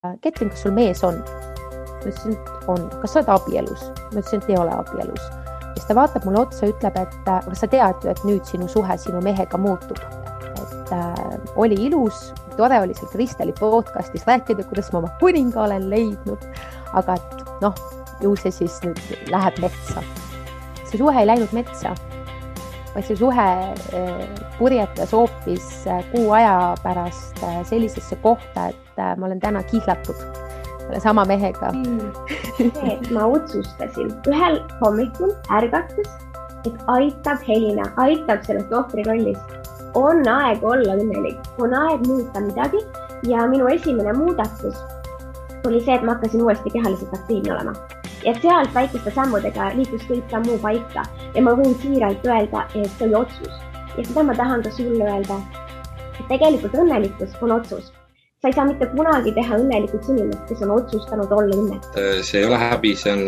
Ketrin, kas sul mees on? Ma ütlesin, et on. Kas sa oled abielus? Ma ütlesin, et ei ole abielus. Ja siis ta vaatab mulle otsa ja ütleb, et aga sa tead ju, et nüüd sinu suhe sinu mehega muutub. Et oli ilus, tore oli seal Kristeli podcastis rääkida, kuidas ma oma kuninga olen leidnud. Aga ju see siis nüüd läheb metsa. See suhe ei läinud metsa, vaid see suhe purjetas hoopis kuu aja pärast sellisesse kohta, et ma olen täna kihlatud selle sama mehega. Ma otsustasin ühel hommikul ärgates, et aitab Helina, aitab sellest ohvrirollist. On aeg olla õnnelik, on aeg muuta midagi ja minu esimene muudatus oli see, et ma hakkasin uuesti kehaliselt aktiivne olema. Ja sealt väikeste sammudega liikus kõik ka muu paika ja ma võin siiralt öelda, et see oli otsus. Ja seda ma tahan ka sulle öelda, et tegelikult õnnelikkus on otsus. Sa ei saa mitte kunagi teha õnnelikuks inimest, kes on otsustanud olla õnnelik. See ei ole häbi, see on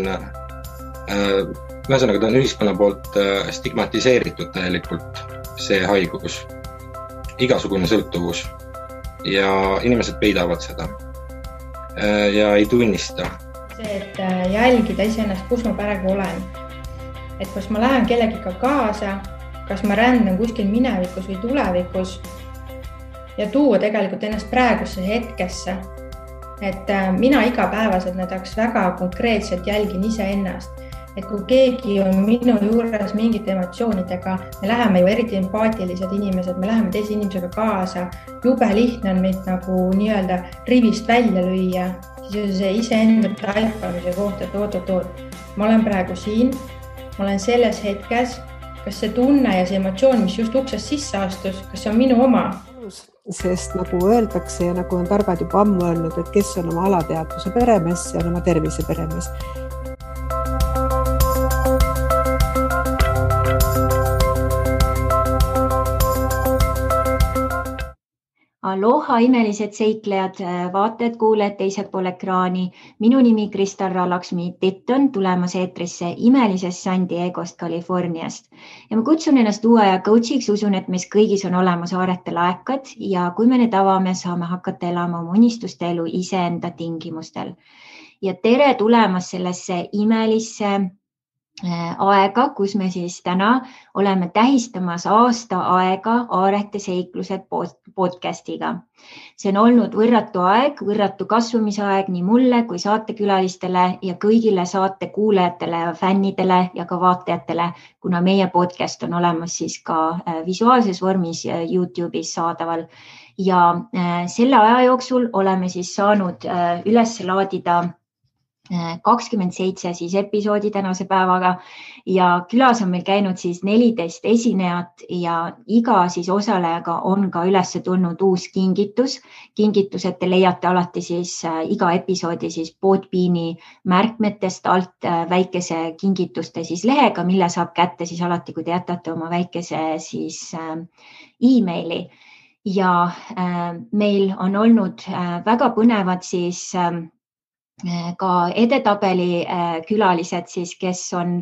ühesõnaga ta on ühiskonna poolt stigmatiseeritud täielikult see haigus, igasugune sõltuvus ja inimesed peidavad seda ja ei tunnista. See, et jälgida iseennast, kus ma praegu olen. Et kas ma lähen kellegiga kaasa, kas ma rändan kuskil minevikus või tulevikus ja tuua tegelikult ennast praegusse hetkesse. Et mina igapäevaselt näiteks väga konkreetselt jälgin iseennast. Et kui keegi on minu juures mingite emotsioonidega, me läheme ju eriti empaatilised inimesed, me läheme teise inimesega kaasa, jube lihtne on meid nagu nii-öelda rivist välja lüüa, siis see iseenda taipamise kohta, et oot. Ma olen praegu siin, ma olen selles hetkes, kas see tunne ja see emotsioon, mis just uksest sisse astus, kas see on minu oma? Sest nagu öeldakse ja nagu on targad juba ammu öelnud, et kes on oma alateadvuse peremees, see on oma tervise peremees. Aloha imelised seiklejad, vaatajad, kuulajad teisel pool ekraani. Minu nimi Kristal Laksmi Titton tulemas eetrisse imelisest San Diegost, Californiast. Ja ma kutsun ennast uue aja coachiks, usun, et meis kõigis on olemas aarete laekad ja kui me need avame, saame hakata elama oma unistuste elu iseenda tingimustel. Ja tere tulemas sellesse imelisse aega, kus me siis täna oleme tähistamas aasta aega Aarete seiklused podcastiga. See on olnud võrratu aeg, võrratu kasvamisaeg nii mulle kui saatekülalistele ja kõigile saate kuulajatele ja fännidele ja ka vaatajatele, kuna meie podcast on olemas siis ka visuaalses vormis YouTube'is saadaval. Ja selle aja jooksul oleme siis saanud üles laadida 27 siis episoodi tänase päevaga ja külas on meil käinud siis 14 esinejat ja iga siis osalejaga on ka üles tulnud uus kingitus. Kingitused te leiate alati siis iga episoodi siis Podbeani märkmetest alt väikese kingituste siis lehega, mille saab kätte siis alati, kui te jätate oma väikese siis e-maili. Ja meil on olnud väga põnevad siis ka edetabeli külalised, siis, kes on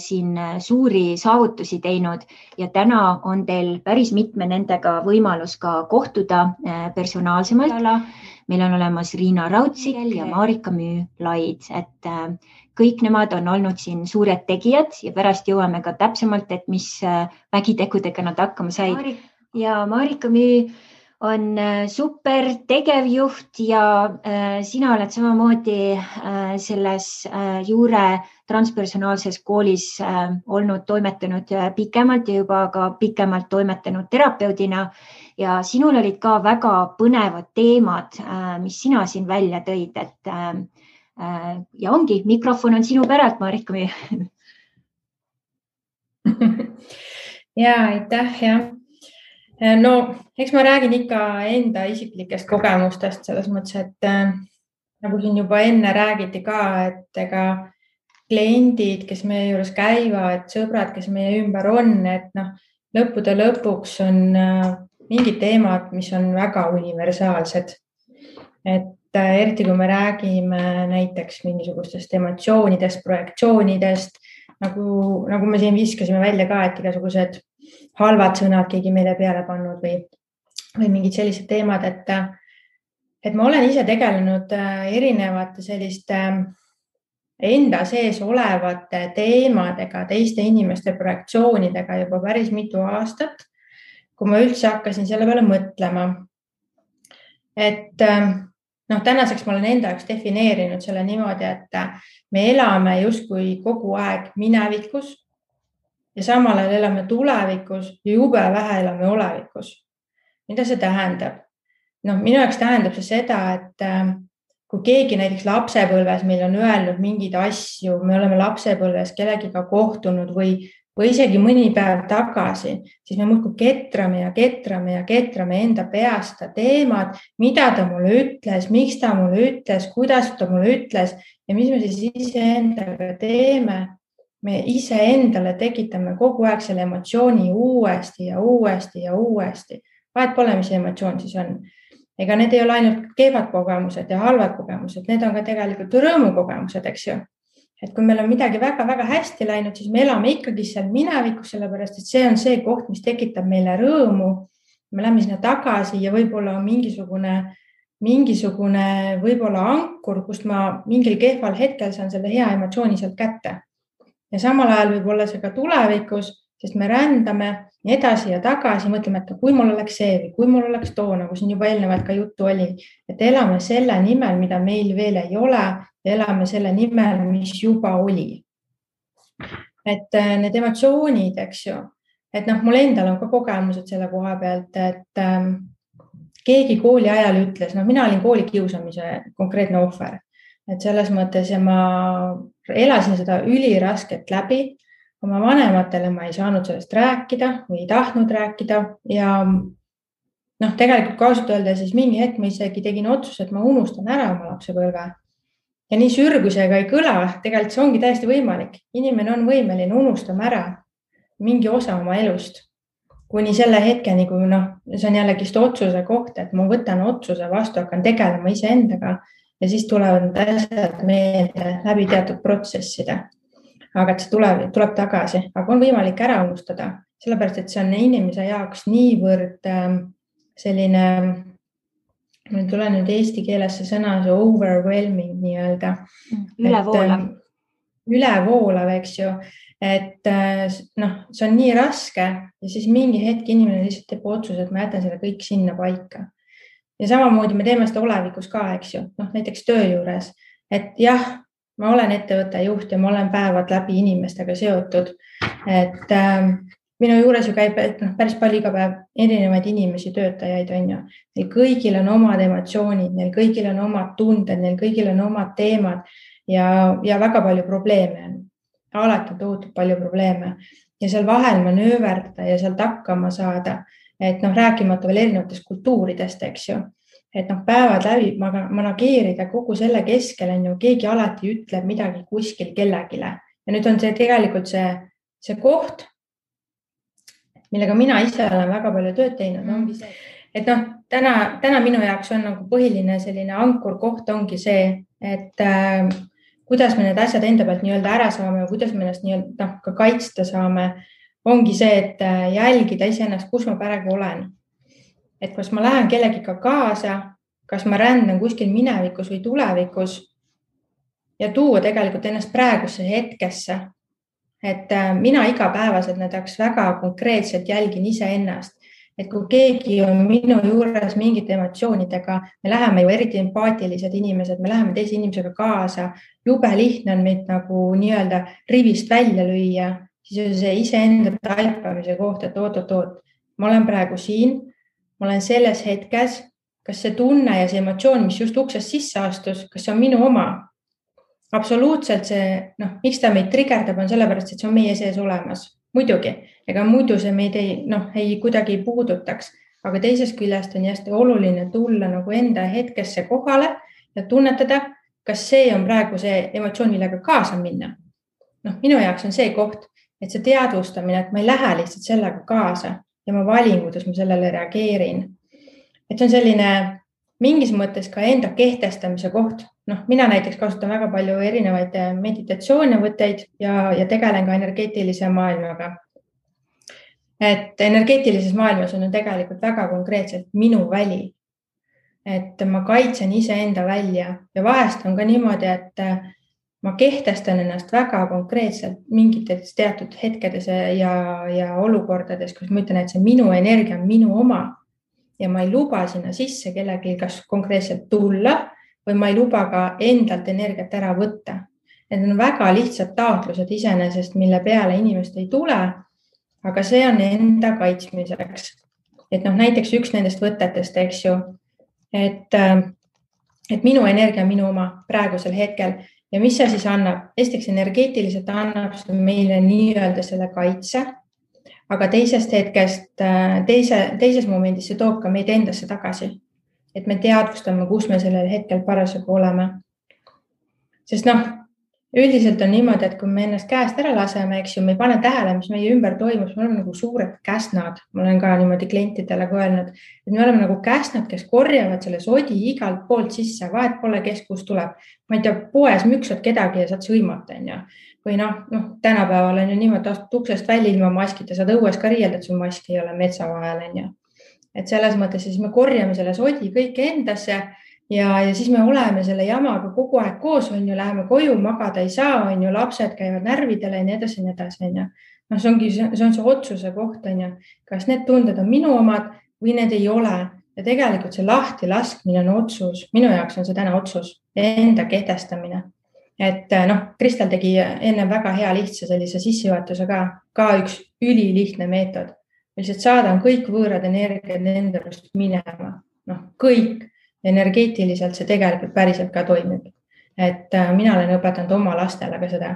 siin suuri saavutusi teinud ja täna on teil päris mitme nendega võimalus ka kohtuda personaalsemalt. Meil on olemas Riina Raudsik ja Marika Müü-Laid, et kõik nemad on olnud siin suured tegijad ja pärast jõuame ka täpsemalt, et mis vägitegudega nad hakkama said. Ja Marika Müü on super tegevjuht ja sina oled samamoodi selles juure transpersonaalses koolis olnud toimetanud pikemalt ja juba ka pikemalt toimetanud terapeudina ja sinul olid ka väga põnevad teemad, mis sina siin välja tõid, et ja ongi, mikrofon on sinu päralt, Marika Müü. Ja, aitäh, jah. No, eks ma räägin ikka enda isiklikest kogemustest selles mõttes, et nagu siin juba enne räägiti ka, et ega kliendid, kes meie juures käivad, sõbrad, kes meie ümber on, et lõppude lõpuks on mingid teemad, mis on väga universaalsed. Et eriti kui me räägime näiteks mingisugustest emotsioonidest, projektsioonidest, nagu me siin viskasime välja ka, et igasugused halvad sõnad keegi meile peale pannud või mingid sellised teemad, et et ma olen ise tegelenud erinevate selliste enda sees olevate teemadega, teiste inimeste projektsioonidega juba päris mitu aastat, kui ma üldse hakkasin selle peale mõtlema. Et tänaseks ma olen enda jaoks defineerinud selle niimoodi, et me elame justkui kogu aeg minevikus ja samal ajal elame tulevikus ja jube vähe elame olevikus. Mida see tähendab? Minu jaoks tähendab see seda, et kui keegi näiteks lapsepõlves meil on öelnud mingeid asju, me oleme lapsepõlves kellegiga kohtunud või isegi mõni päev tagasi, siis me muudkui ketrame enda peast teemad, mida ta mulle ütles, miks ta mulle ütles, kuidas ta mulle ütles ja mis me siis iseendaga teeme. Me iseendale tekitame kogu aeg selle emotsiooni uuesti ja uuesti ja uuesti. Vahet pole, mis emotsioon siis on. Ega need ei ole ainult kehvad kogemused ja halvad kogemused, need on ka tegelikult rõõmukogemused, eks ju. Et kui meil on midagi väga-väga hästi läinud, siis me elame ikkagi seal minevikus, sellepärast, et see on see koht, mis tekitab meile rõõmu. Me läheme sinna tagasi ja võib-olla on mingisugune võib-olla ankur, kust ma mingil kehval hetkel saan selle hea emotsiooni sealt kätte. Ja samal ajal võib olla see ka tulevikus, sest me rändame edasi ja tagasi, mõtleme, et kui mul oleks see või kui mul oleks too, nagu siin juba eelnevalt ka juttu oli, et elame selle nimel, mida meil veel ei ole ja elame selle nimel, mis juba oli. Et need emotsioonid, eks ju, et mul endal on ka kogemused selle koha pealt, et keegi kooli ajal ütles, mina olin kooli kiusamise konkreetne ohver, et selles mõttes ja ma elasin seda ülirasket läbi. Oma vanematele ma ei saanud sellest rääkida või ei tahtnud rääkida ja tegelikult kaasut öelda, siis mingi hetk ma isegi tegin otsuse, et ma unustan ära oma lapsepõlve. Ja nii sürgusega ei kõla, tegelikult see ongi täiesti võimalik. Inimene on võimeline unustama ära mingi osa oma elust. Kuni selle hetkeni, kui see on jällegi otsuse koht, et ma võtan otsuse vastu, hakkan tegelema iseendaga ja siis tulevad need asjad meelde läbi teatud protsesside. Aga et see tuleb tagasi, aga on võimalik ära unustada, sellepärast, et see on inimese jaoks niivõrd selline, mul tuleb nüüd eesti keeles see sõna, see overwhelming nii-öelda. Ülevoolav, eks ju, et see on nii raske ja siis mingi hetk inimene lihtsalt teeb otsuse, et ma jätan selle kõik sinna paika. Ja samamoodi me teeme seda olevikus ka, eks ju, näiteks töö juures, et jah, ma olen ettevõtte juht ja ma olen päevad läbi inimestega seotud, et minu juures ju käib päris palju iga päev erinevaid inimesi, töötajaid on ju. Neil kõigil on omad emotsioonid, neil kõigil on omad tunded, neil kõigil on omad teemad ja väga palju probleeme on. Alati on tohutult palju probleeme ja seal vahel manööverdada ja sealt hakkama saada, et rääkimata veel erinevatest kultuuridest, eks ju. Et päevad läbi manageerida kogu selle keskel on ju, keegi alati ütleb midagi kuskil kellegile. Ja nüüd on see tegelikult see koht, millega mina ise olen väga palju tööd teinud, ongi see, et täna minu jaoks on nagu põhiline selline ankur koht ongi see, et kuidas me need asjad enda pealt nii-öelda ära saame ja kuidas me ennast nii-öelda ka kaitsta saame, ongi see, et jälgida iseennast, kus ma praegu olen. Et kas ma lähen kellegiga kaasa, kas ma rändan kuskil minevikus või tulevikus ja tuua tegelikult ennast praegusse hetkesse. Et mina igapäevaselt näiteks väga konkreetselt jälgin iseennast, et kui keegi on minu juures mingite emotsioonidega, me läheme ju eriti empaatilised inimesed, me läheme teise inimesega kaasa, jube lihtne on meid nagu nii-öelda rivist välja lüüa, siis on see iseenda taipamise koht, et oot, ma olen praegu siin, ma olen selles hetkes, kas see tunne ja see emotsioon, mis just uksest sisse astus, kas see on minu oma? Absoluutselt see, miks ta meid trigerdab on sellepärast, et see on meie sees olemas. Muidugi, ega muidu see meid ei kuidagi puudutaks, aga teisest küljest on hästi oluline tulla nagu enda hetkesse kohale ja tunnetada, kas see on praegu see emotsioon, millega kaasa minna. Minu jaoks on see koht, et see teadvustamine, et ma ei lähe lihtsalt sellega kaasa ja ma valin, kuidas ma sellele reageerin. Et see on selline mingis mõttes ka enda kehtestamise koht. Mina näiteks kasutan väga palju erinevaid meditatsioonivõtteid ja tegelen ka energeetilise maailmaga. Et energeetilises maailmas on tegelikult väga konkreetselt minu väli. et ma kaitsen iseenda välja ja vahest on ka niimoodi, et ma kehtestan ennast väga konkreetselt mingites teatud hetkedes ja olukordades, kus ma ütlen, et see minu energia on minu oma ja ma ei luba sinna sisse kellegi kas konkreetselt tulla või ma ei luba ka endalt energiat ära võtta. Need on väga lihtsad taotlused iseenesest, mille peale inimest ei tule, aga see on enda kaitsmiseks. Et näiteks üks nendest võtetest, eks ju, et minu energia on minu oma praegusel hetkel ja mis see siis annab? Esiteks energeetiliselt annab meile nii-öelda selle kaitse, aga teisest hetkest, teises momendis see toob ka meid endasse tagasi, et me teadvustame, kus me sellel hetkel parasjagu oleme. Sest üldiselt on niimoodi, et kui me ennast käest ära laseme, eks ju, me ei pane tähele, mis meie ümber toimus, me oleme nagu suured käsnad. Ma olen ka niimoodi klientidele öelnud, et me oleme nagu käsnad, kes korjavad selle sodi igalt poolt sisse, vahet pole, kes kus tuleb. Ma ei tea, poes müksad kedagi ja saad sõimata, on ju. Või tänapäeval on ju niimoodi, astud uksest välja ilma maskita, saad õues ka riielda, et sul maski ei ole metsa vahel, on ju. Et selles mõttes siis me korjame selle sodi kõik endasse ja siis me oleme selle jamaga kogu aeg koos, on ju, läheme koju, magada ei saa, on ju, lapsed käivad närvidele ja nii edasi, on ju. See on see otsuse koht, on ju, kas need tunded on minu omad või need ei ole. Ja tegelikult see lahti laskmine on otsus. Minu jaoks on see täna otsus, enda kehtestamine. Et Kristel tegi enne väga hea lihtsa sellise sissejuhatuse ka üks ülilihtne meetod. Lihtsalt saadan kõik võõrad energiad endast minema. Kõik. Energeetiliselt see tegelikult päriselt ka toimib. Et mina olen õpetanud oma lastele ka seda,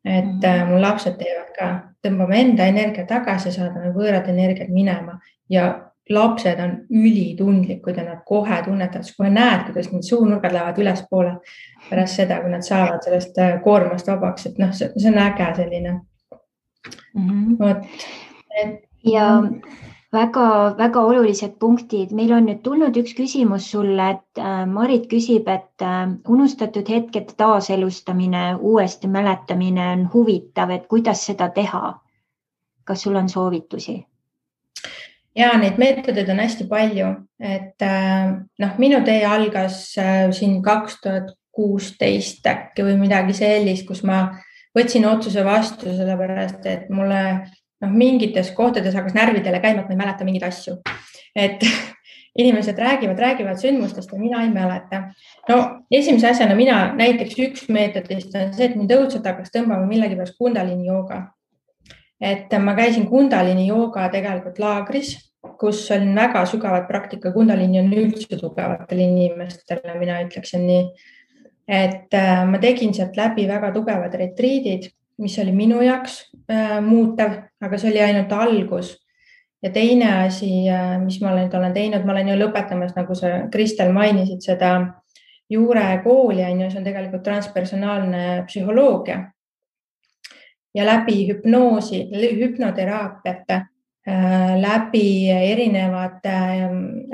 et mul lapsed teevad ka, tõmbame enda energia tagasi, saadame võõrad energiat minema ja lapsed on ülitundlikud ja nad kohe tunnetavad, kohe näed, kuidas need suunurgad lähevad ülespoole pärast seda, kui nad saavad sellest koormast vabaks, et see on äge selline. Ja väga olulised punktid. Meil on nüüd tulnud üks küsimus sulle, et Marit küsib, et unustatud hetked taaselustamine, uuesti mäletamine on huvitav, et kuidas seda teha? Kas sul on soovitusi? Ja neid meetodeid on hästi palju, et minu tee algas siin 2016 äkki või midagi sellist, kus ma võtsin otsuse vastu sellepärast, et mulle mingites kohtades hakkas närvidele käima, et ma ei mäleta mingeid asju. Et inimesed räägivad sündmustest ja mina ei mäleta. Esimese asjana mina näiteks üks meetodist on see, et mind õudselt hakkas tõmbama millegi pärast kundalini jooga. Et ma käisin kundalini jooga tegelikult laagris, kus on väga sügavad praktika. Kundalini on üldse tugevatele inimestele, mina ütleksin nii. Et ma tegin sealt läbi väga tugevad retriidid, mis oli minu jaoks muutev, aga see oli ainult algus. Ja teine asi, mis ma olen teinud, ma olen ju lõpetamas, nagu sa Kristel mainisid, seda juurekooli, see on tegelikult transpersonaalne psühholoogia. Ja läbi hüpnoosi, hüpnoteraapiate, läbi erinevate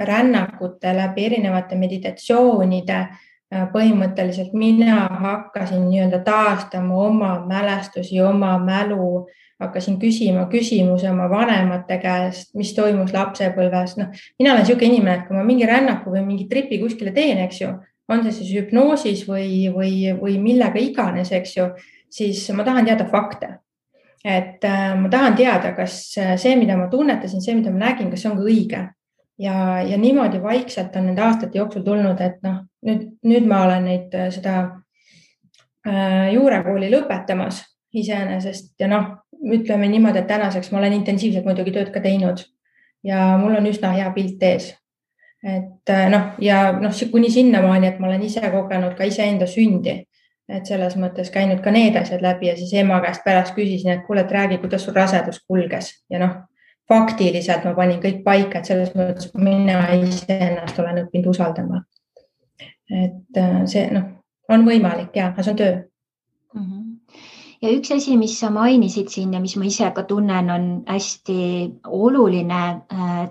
rännakute, läbi erinevate meditatsioonide, põhimõtteliselt mina hakkasin nii-öelda taastama oma mälestusi, oma mälu, hakkasin küsima küsimusi oma vanemate käest, mis toimus lapsepõlves. Mina olen selline inimene, et kui ma mingi rännaku või mingi tripi kuskile teen, eks ju, on see siis hüpnoosis või millega iganes, eks ju, siis ma tahan teada fakte. Et ma tahan teada, kas see, mida ma tunnetasin, see, mida ma nägin, kas see on ka õige. Ja niimoodi vaikselt on nende aastate jooksul tulnud, et nüüd ma olen seda juurekooli lõpetamas iseenesest ja ütleme niimoodi, et tänaseks ma olen intensiivselt muidugi tööd ka teinud ja mul on üsna hea pilt ees. Et kuni sinnamaani, et ma olen ise kogenud ka iseenda sündi, et selles mõttes käinud ka need asjad läbi ja siis ema käest pärast küsisin, et kuule, et räägi, kuidas sul rasedus kulges ja faktiliselt ma panin kõik paika, et selles mõttes mina ise ennast olen õppinud usaldama. Et see on võimalik ja see on töö. Ja üks asi, mis sa mainisid siin ja mis ma ise ka tunnen, on hästi oluline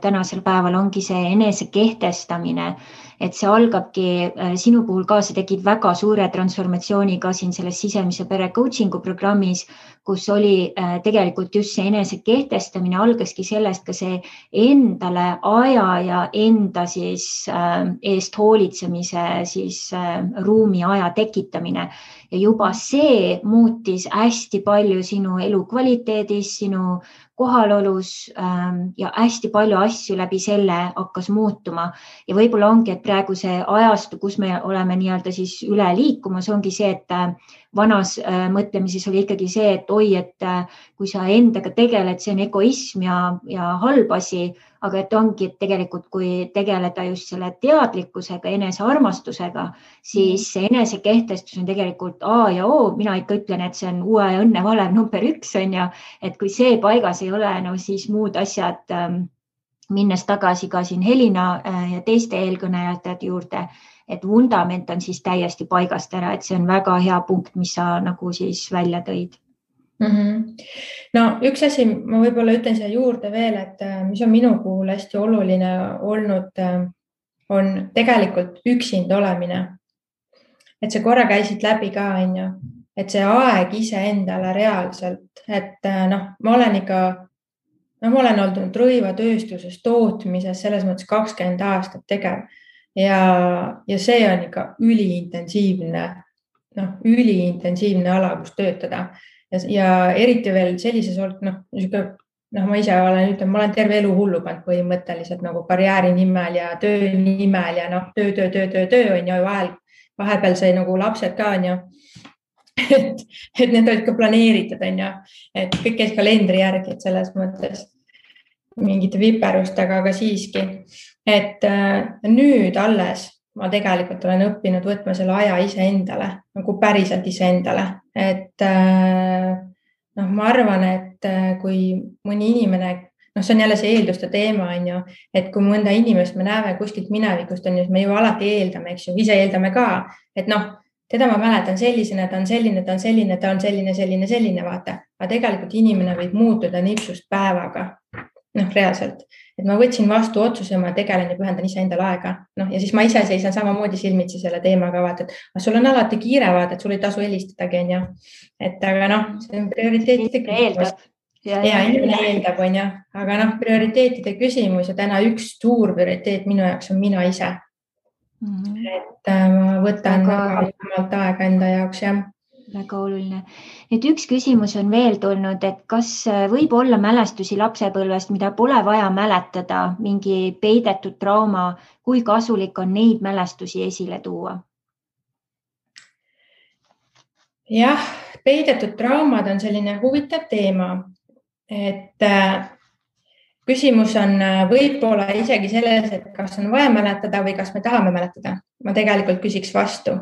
tänasel päeval ongi see enese kehtestamine. et see algabki sinu puhul ka, see tegid väga suure transformatsiooni ka siin selles sisemise pere coaching'u programmis, kus oli tegelikult just see enese kehtestamine, algaski sellest ka see endale aja ja enda siis eest hoolitsemise siis ruumi aja tekitamine. Ja juba see muutis hästi palju sinu elukvaliteedis, sinu kohalolus ja hästi palju asju läbi selle hakkas muutuma. Ja võib-olla ongi, et praegu see ajastu, kus me oleme nii-öelda siis üle liikumas, ongi see, et vanas mõtlemises oli ikkagi see, et oi, et kui sa endaga tegeled, see on egoism ja halb asi, aga et ongi, et tegelikult kui tegeleda just selle teadlikkusega, enesearmastusega, siis see enesekehtestus on tegelikult A ja O. Mina ikka ütlen, et see on uue õnne valem number 1 on ja, et kui see paigas ei ole, no siis muud asjad, minnes tagasi ka siin Helina ja teiste eelkõnejate juurde, et vundament on siis täiesti paigast ära, et see on väga hea punkt, mis sa nagu siis välja tõid. No üks asi, ma võib-olla ütlen siia juurde veel, et mis on minu puhul hästi oluline olnud, on tegelikult üksinda olemine. Et see korra käisid läbi ka, et see aeg iseendale reaalselt, et ma olen olnud rõivatööstuses, tootmises, selles mõttes 20 aastat tegev ja see on ikka üliintensiivne ala, kus töötada. Ja eriti veel sellises ma ise olen terve elu hullu pannud põhimõtteliselt nagu karjääri nimel ja töö nimel ja töö on ju vahepeal sai nagu lapsed ka on ju, et need olid ka planeeritud on ju, et kõik käis kalendri järgi, et selles mõttes mingite viperustega, aga siiski, et nüüd alles ma tegelikult olen õppinud võtma selle aja iseendale, nagu päriselt iseendale, et ma arvan, et kui mõni inimene, see on jälle see eelduste teema on ju, et kui mõnda inimest me näeme kuskilt minevikust on ju, me ju alati eeldame, eks ju, ise eeldame ka, et teda ma mäletan sellisena, ta on selline, vaata, aga tegelikult inimene võib muutuda nipsust päevaga, reaalselt. Et ma võtsin vastu otsuse, ma tegelen ja pühendan iseendale aega. Ja siis ma ise seisan samamoodi silmitsi selle teemaga, vaata, et sul on alati kiire, vaata, et sul ei tasu helistadagi, on ju. Et aga see on prioriteetide küsimus. Ja inimene eeldab, on ju. Aga prioriteetide küsimus ja täna üks suur prioriteet minu jaoks on mina ise. Et ma võtan väga aega enda jaoks, jah. Väga oluline. Nüüd üks küsimus on veel tulnud, et kas võib olla mälestusi lapsepõlvest, mida pole vaja mäletada, mingi peidetud trauma, kui kasulik on neid mälestusi esile tuua? Jah, peidetud traumad on selline huvitav teema, et küsimus on võib-olla isegi selles, et kas on vaja mäletada või kas me tahame mäletada. Ma tegelikult küsiks vastu.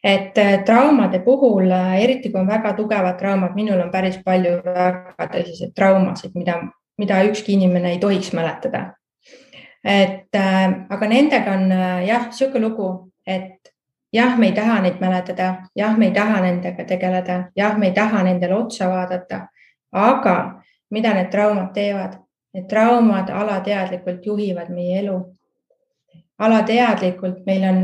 Et traumade puhul, eriti kui on väga tugevad traumad, minul on päris palju väga tõsiseid traumasid, mida ükski inimene ei tohiks mäletada. Aga nendega on siuke lugu, et jah, me ei taha neid mäletada, jah, me ei taha nendega tegeleda, jah, me ei taha nendele otsa vaadata, aga mida need traumad teevad? Need traumad alateadlikult juhivad meie elu. Alateadlikult meil on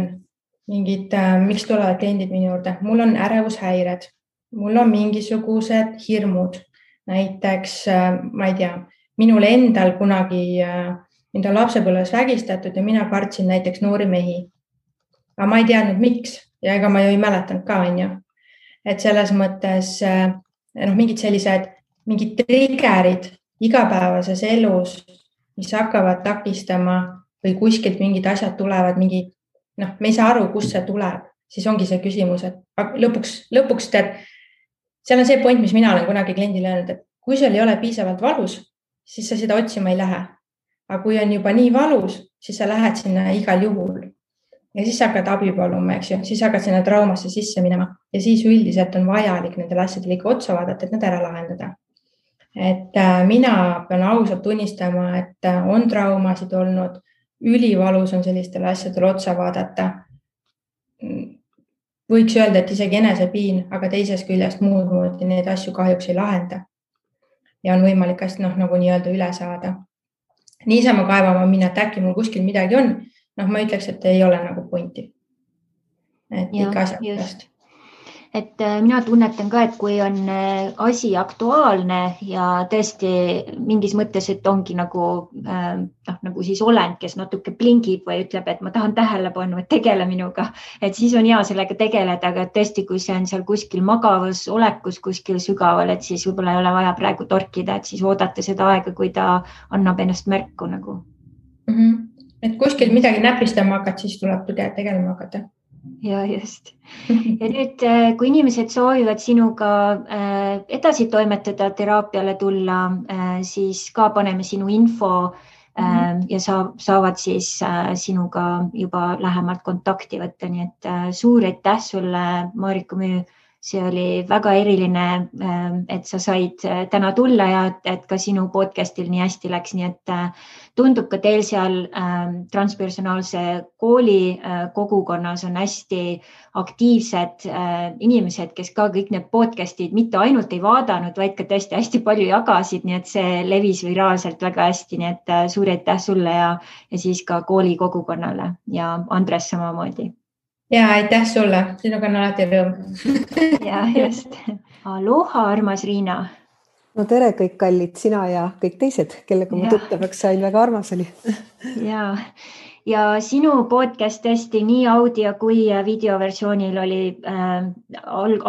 mingid, miks tulevad kliendid minu juurde? Mul on ärevushäired, mul on mingisugused hirmud. Näiteks, ma ei tea, minul endal kunagi mind on lapsepõlves vägistatud ja mina kartsin näiteks noori mehi. Aga ma ei teadnud, miks ja ega ma ju ei mäletanud ka, on ju. Et selles mõttes mingid triggerid igapäevases elus, mis hakkavad takistama või kuskilt mingid asjad tulevad, me ei saa aru, kust see tuleb, siis ongi see küsimus, et lõpuks tead, seal on see point, mis mina olen kunagi kliendile öelnud, et kui sul ei ole piisavalt valus, siis sa seda otsima ei lähe. Aga kui on juba nii valus, siis sa lähed sinna igal juhul. Ja siis sa hakkad abi paluma, eks ju, siis hakkad sinna traumasse sisse minema ja siis üldiselt on vajalik nendel asjadel ikka otsa vaadata, et need ära lahendada. Et mina pean ausalt tunnistama, et on traumasid olnud, ülivalus on sellistele asjadele otsa vaadata. Võiks öelda, et isegi enesepiin, aga teisest küljest muud moodi neid asju kahjuks ei lahenda. Ja on võimalik hästi nagu nii-öelda üle saada. Niisama kaevama minna, et äkki mul kuskil midagi on. ma ütleks, et ei ole nagu pointi. Et ikka asja pärast. Et mina tunnetan ka, et kui on asi aktuaalne ja tõesti mingis mõttes, et ongi nagu siis olend, kes natuke blingib või ütleb, et ma tahan tähelepanu, et tegele minuga, et siis on hea sellega tegeleda, aga tõesti, kui see on seal kuskil magavas olekus, kuskil sügaval, et siis võib-olla ei ole vaja praegu torkida, et siis oodata seda aega, kui ta annab ennast märku nagu. Et kuskil midagi näpistama hakata, siis tuleb tegelema hakata. Ja just. Ja nüüd, kui inimesed soovivad sinuga edasi toimetada, teraapiale tulla, siis ka paneme sinu info ja saavad siis sinuga juba lähemalt kontakti võtta. Nii et suur aitäh sulle, Marika Müü. See oli väga eriline, et sa said täna tulla ja et ka sinu podcastil nii hästi läks. Nii et tundub ka teil seal transpersonaalse kooli kogukonnas on hästi aktiivsed inimesed, kes ka kõik need podcastid mitte ainult ei vaadanud, vaid ka tõesti hästi palju jagasid. Nii et see levis viraalselt väga hästi. Nii et suur aitäh sulle ja siis ka kooli kogukonnale ja Andres samamoodi. Ja aitäh sulle, sinuga on alati rõõm. Ja just. Aloha, armas Riina. No tere kõik kallid, sina ja kõik teised, kellega ma tuttavaks sain, väga armas oli. Ja sinu podcast tõesti nii audio kui videoversioonil oli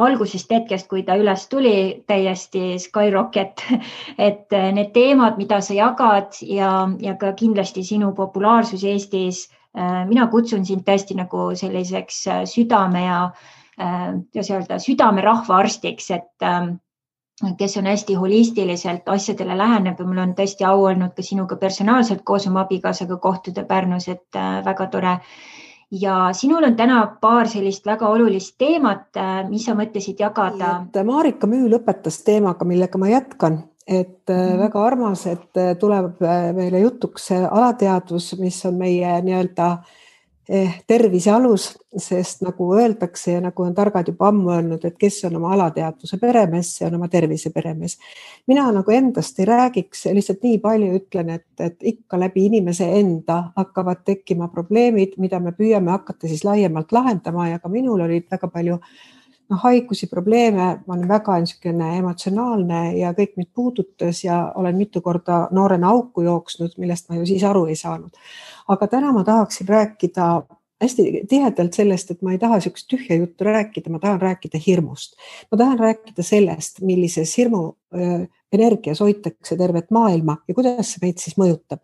algusest hetkest, kui ta üles tuli, täiesti skyrocket. Et need teemad, mida sa jagad ja ka kindlasti sinu populaarsus Eestis, mina kutsun sind tõesti nagu selliseks südame südame rahvaarstiks, et kes on hästi holistiliselt asjadele läheneb ja mul on tõesti au olnud ka sinuga personaalselt koos oma abikaasaga kohtuda Pärnus, et väga tore. Ja sinul on täna paar sellist väga olulist teemat, mis sa mõtlesid jagada. Marika Müü lõpetas teemaga, millega ma jätkan. Et väga armas, et tuleb meile jutuks alateadvus, mis on meie nii-öelda tervise alus, sest nagu öeldakse ja nagu on targad juba ammu öelnud, et kes on oma alateadvuse peremees, see on oma tervise peremees. Mina nagu endast ei räägiks, lihtsalt nii palju ütlen, et ikka läbi inimese enda hakkavad tekkima probleemid, mida me püüame hakata siis laiemalt lahendama ja ka minul olid väga palju haigusi, probleeme, ma olen väga emotsionaalne ja kõik mind puudutas ja olen mitu korda noorena auku jooksnud, millest ma ju siis aru ei saanud. Aga täna ma tahaksin rääkida hästi tihedalt sellest, et ma ei taha sellist tühja juttu rääkida, ma tahan rääkida hirmust. Ma tahan rääkida sellest, millises hirmu energias hoitakse tervet maailma ja kuidas see meid siis mõjutab.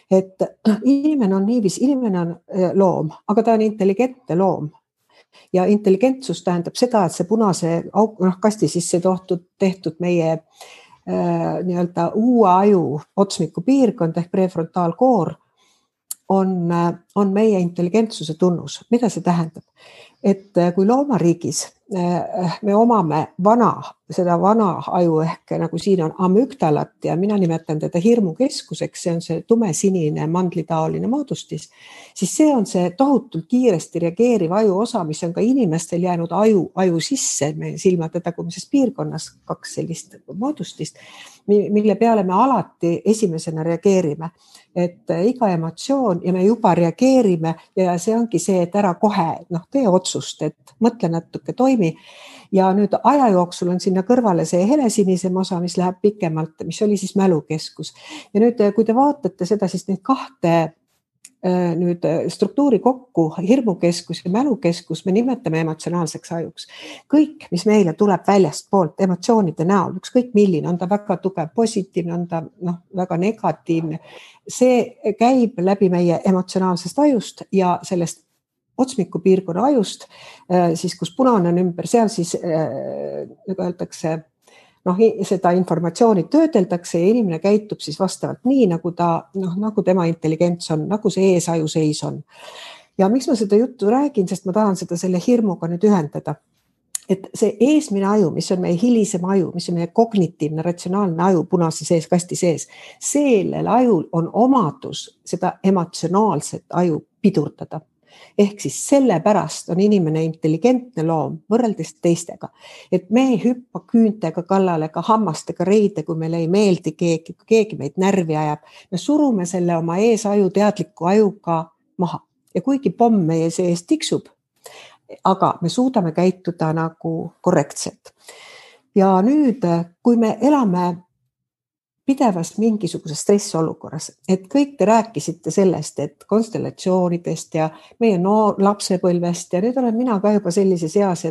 Et inimene on niiviisi, inimene on loom, aga ta on intelligentne loom. Ja intelligentsus tähendab seda, et see punase kasti sisse tehtud meie nii-öelda uue aju otsmiku piirkond ehk prefrontaalkoor on meie intelligentsuse tunnus. Mida see tähendab? Et kui loomariigis me omame seda vana aju ehk nagu siin on amügdalat ja mina nimetan teda hirmukeskuseks, see on see tumesinine mandlitaoline moodustis, siis see on see tohutult kiiresti reageeriv aju osa, mis on ka inimestel jäänud aju sisse, meie silmade tagumises piirkonnas 2 sellist moodustist, mille peale me alati esimesena reageerime. Et iga emotsioon ja me juba reageerime ja see ongi see, et ära kohe tee otsust, et mõtle natuke, toimi. Ja nüüd aja jooksul on sinna kõrvale see helesinisem osa, mis läheb pikemalt, mis oli siis mälukeskus. Ja nüüd, kui te vaatate seda, siis neid 2 nüüd struktuuri kokku, hirmukeskus ja mälukeskus, me nimetame emotsionaalseks ajuks. Kõik, mis meile tuleb väljast poolt emotsioonide näol, ükskõik milline, on ta väga tugev positiivne, on ta väga negatiivne, see käib läbi meie emotsionaalsest ajust ja sellest otsmiku piirkonna ajust, siis kus punane on ümber, seal siis öeldakse, seda informatsiooni töödeldakse ja inimene käitub siis vastavalt nii, nagu tema intelligents on, nagu see eesaju seis on. Ja miks ma seda juttu räägin, sest ma tahan seda selle hirmuga nüüd ühendada. Et see eesmine aju, mis on meie hilisem aju, mis on meie kognitiivne, ratsionaalne aju punase sees, kasti sees, sellel ajul on omadus seda emotsionaalset aju pidurdada. Ehk siis sellepärast on inimene intelligentne loom võrreldes teistega. Et me ei hüppa küüntega kallale, ka hammastega reide, kui meile ei meeldi keegi meid närvi ajab. Me surume selle oma eesaju teadliku ajuga maha. ja kuigi pomm meie sees tiksub, aga me suudame käituda nagu korrektselt. Ja nüüd, kui me elame pidevas mingisuguses stressiolukorras, et kõik te rääkisite sellest, et konstellatsioonidest ja meie lapsepõlvest ja nüüd olen mina ka juba sellises eas,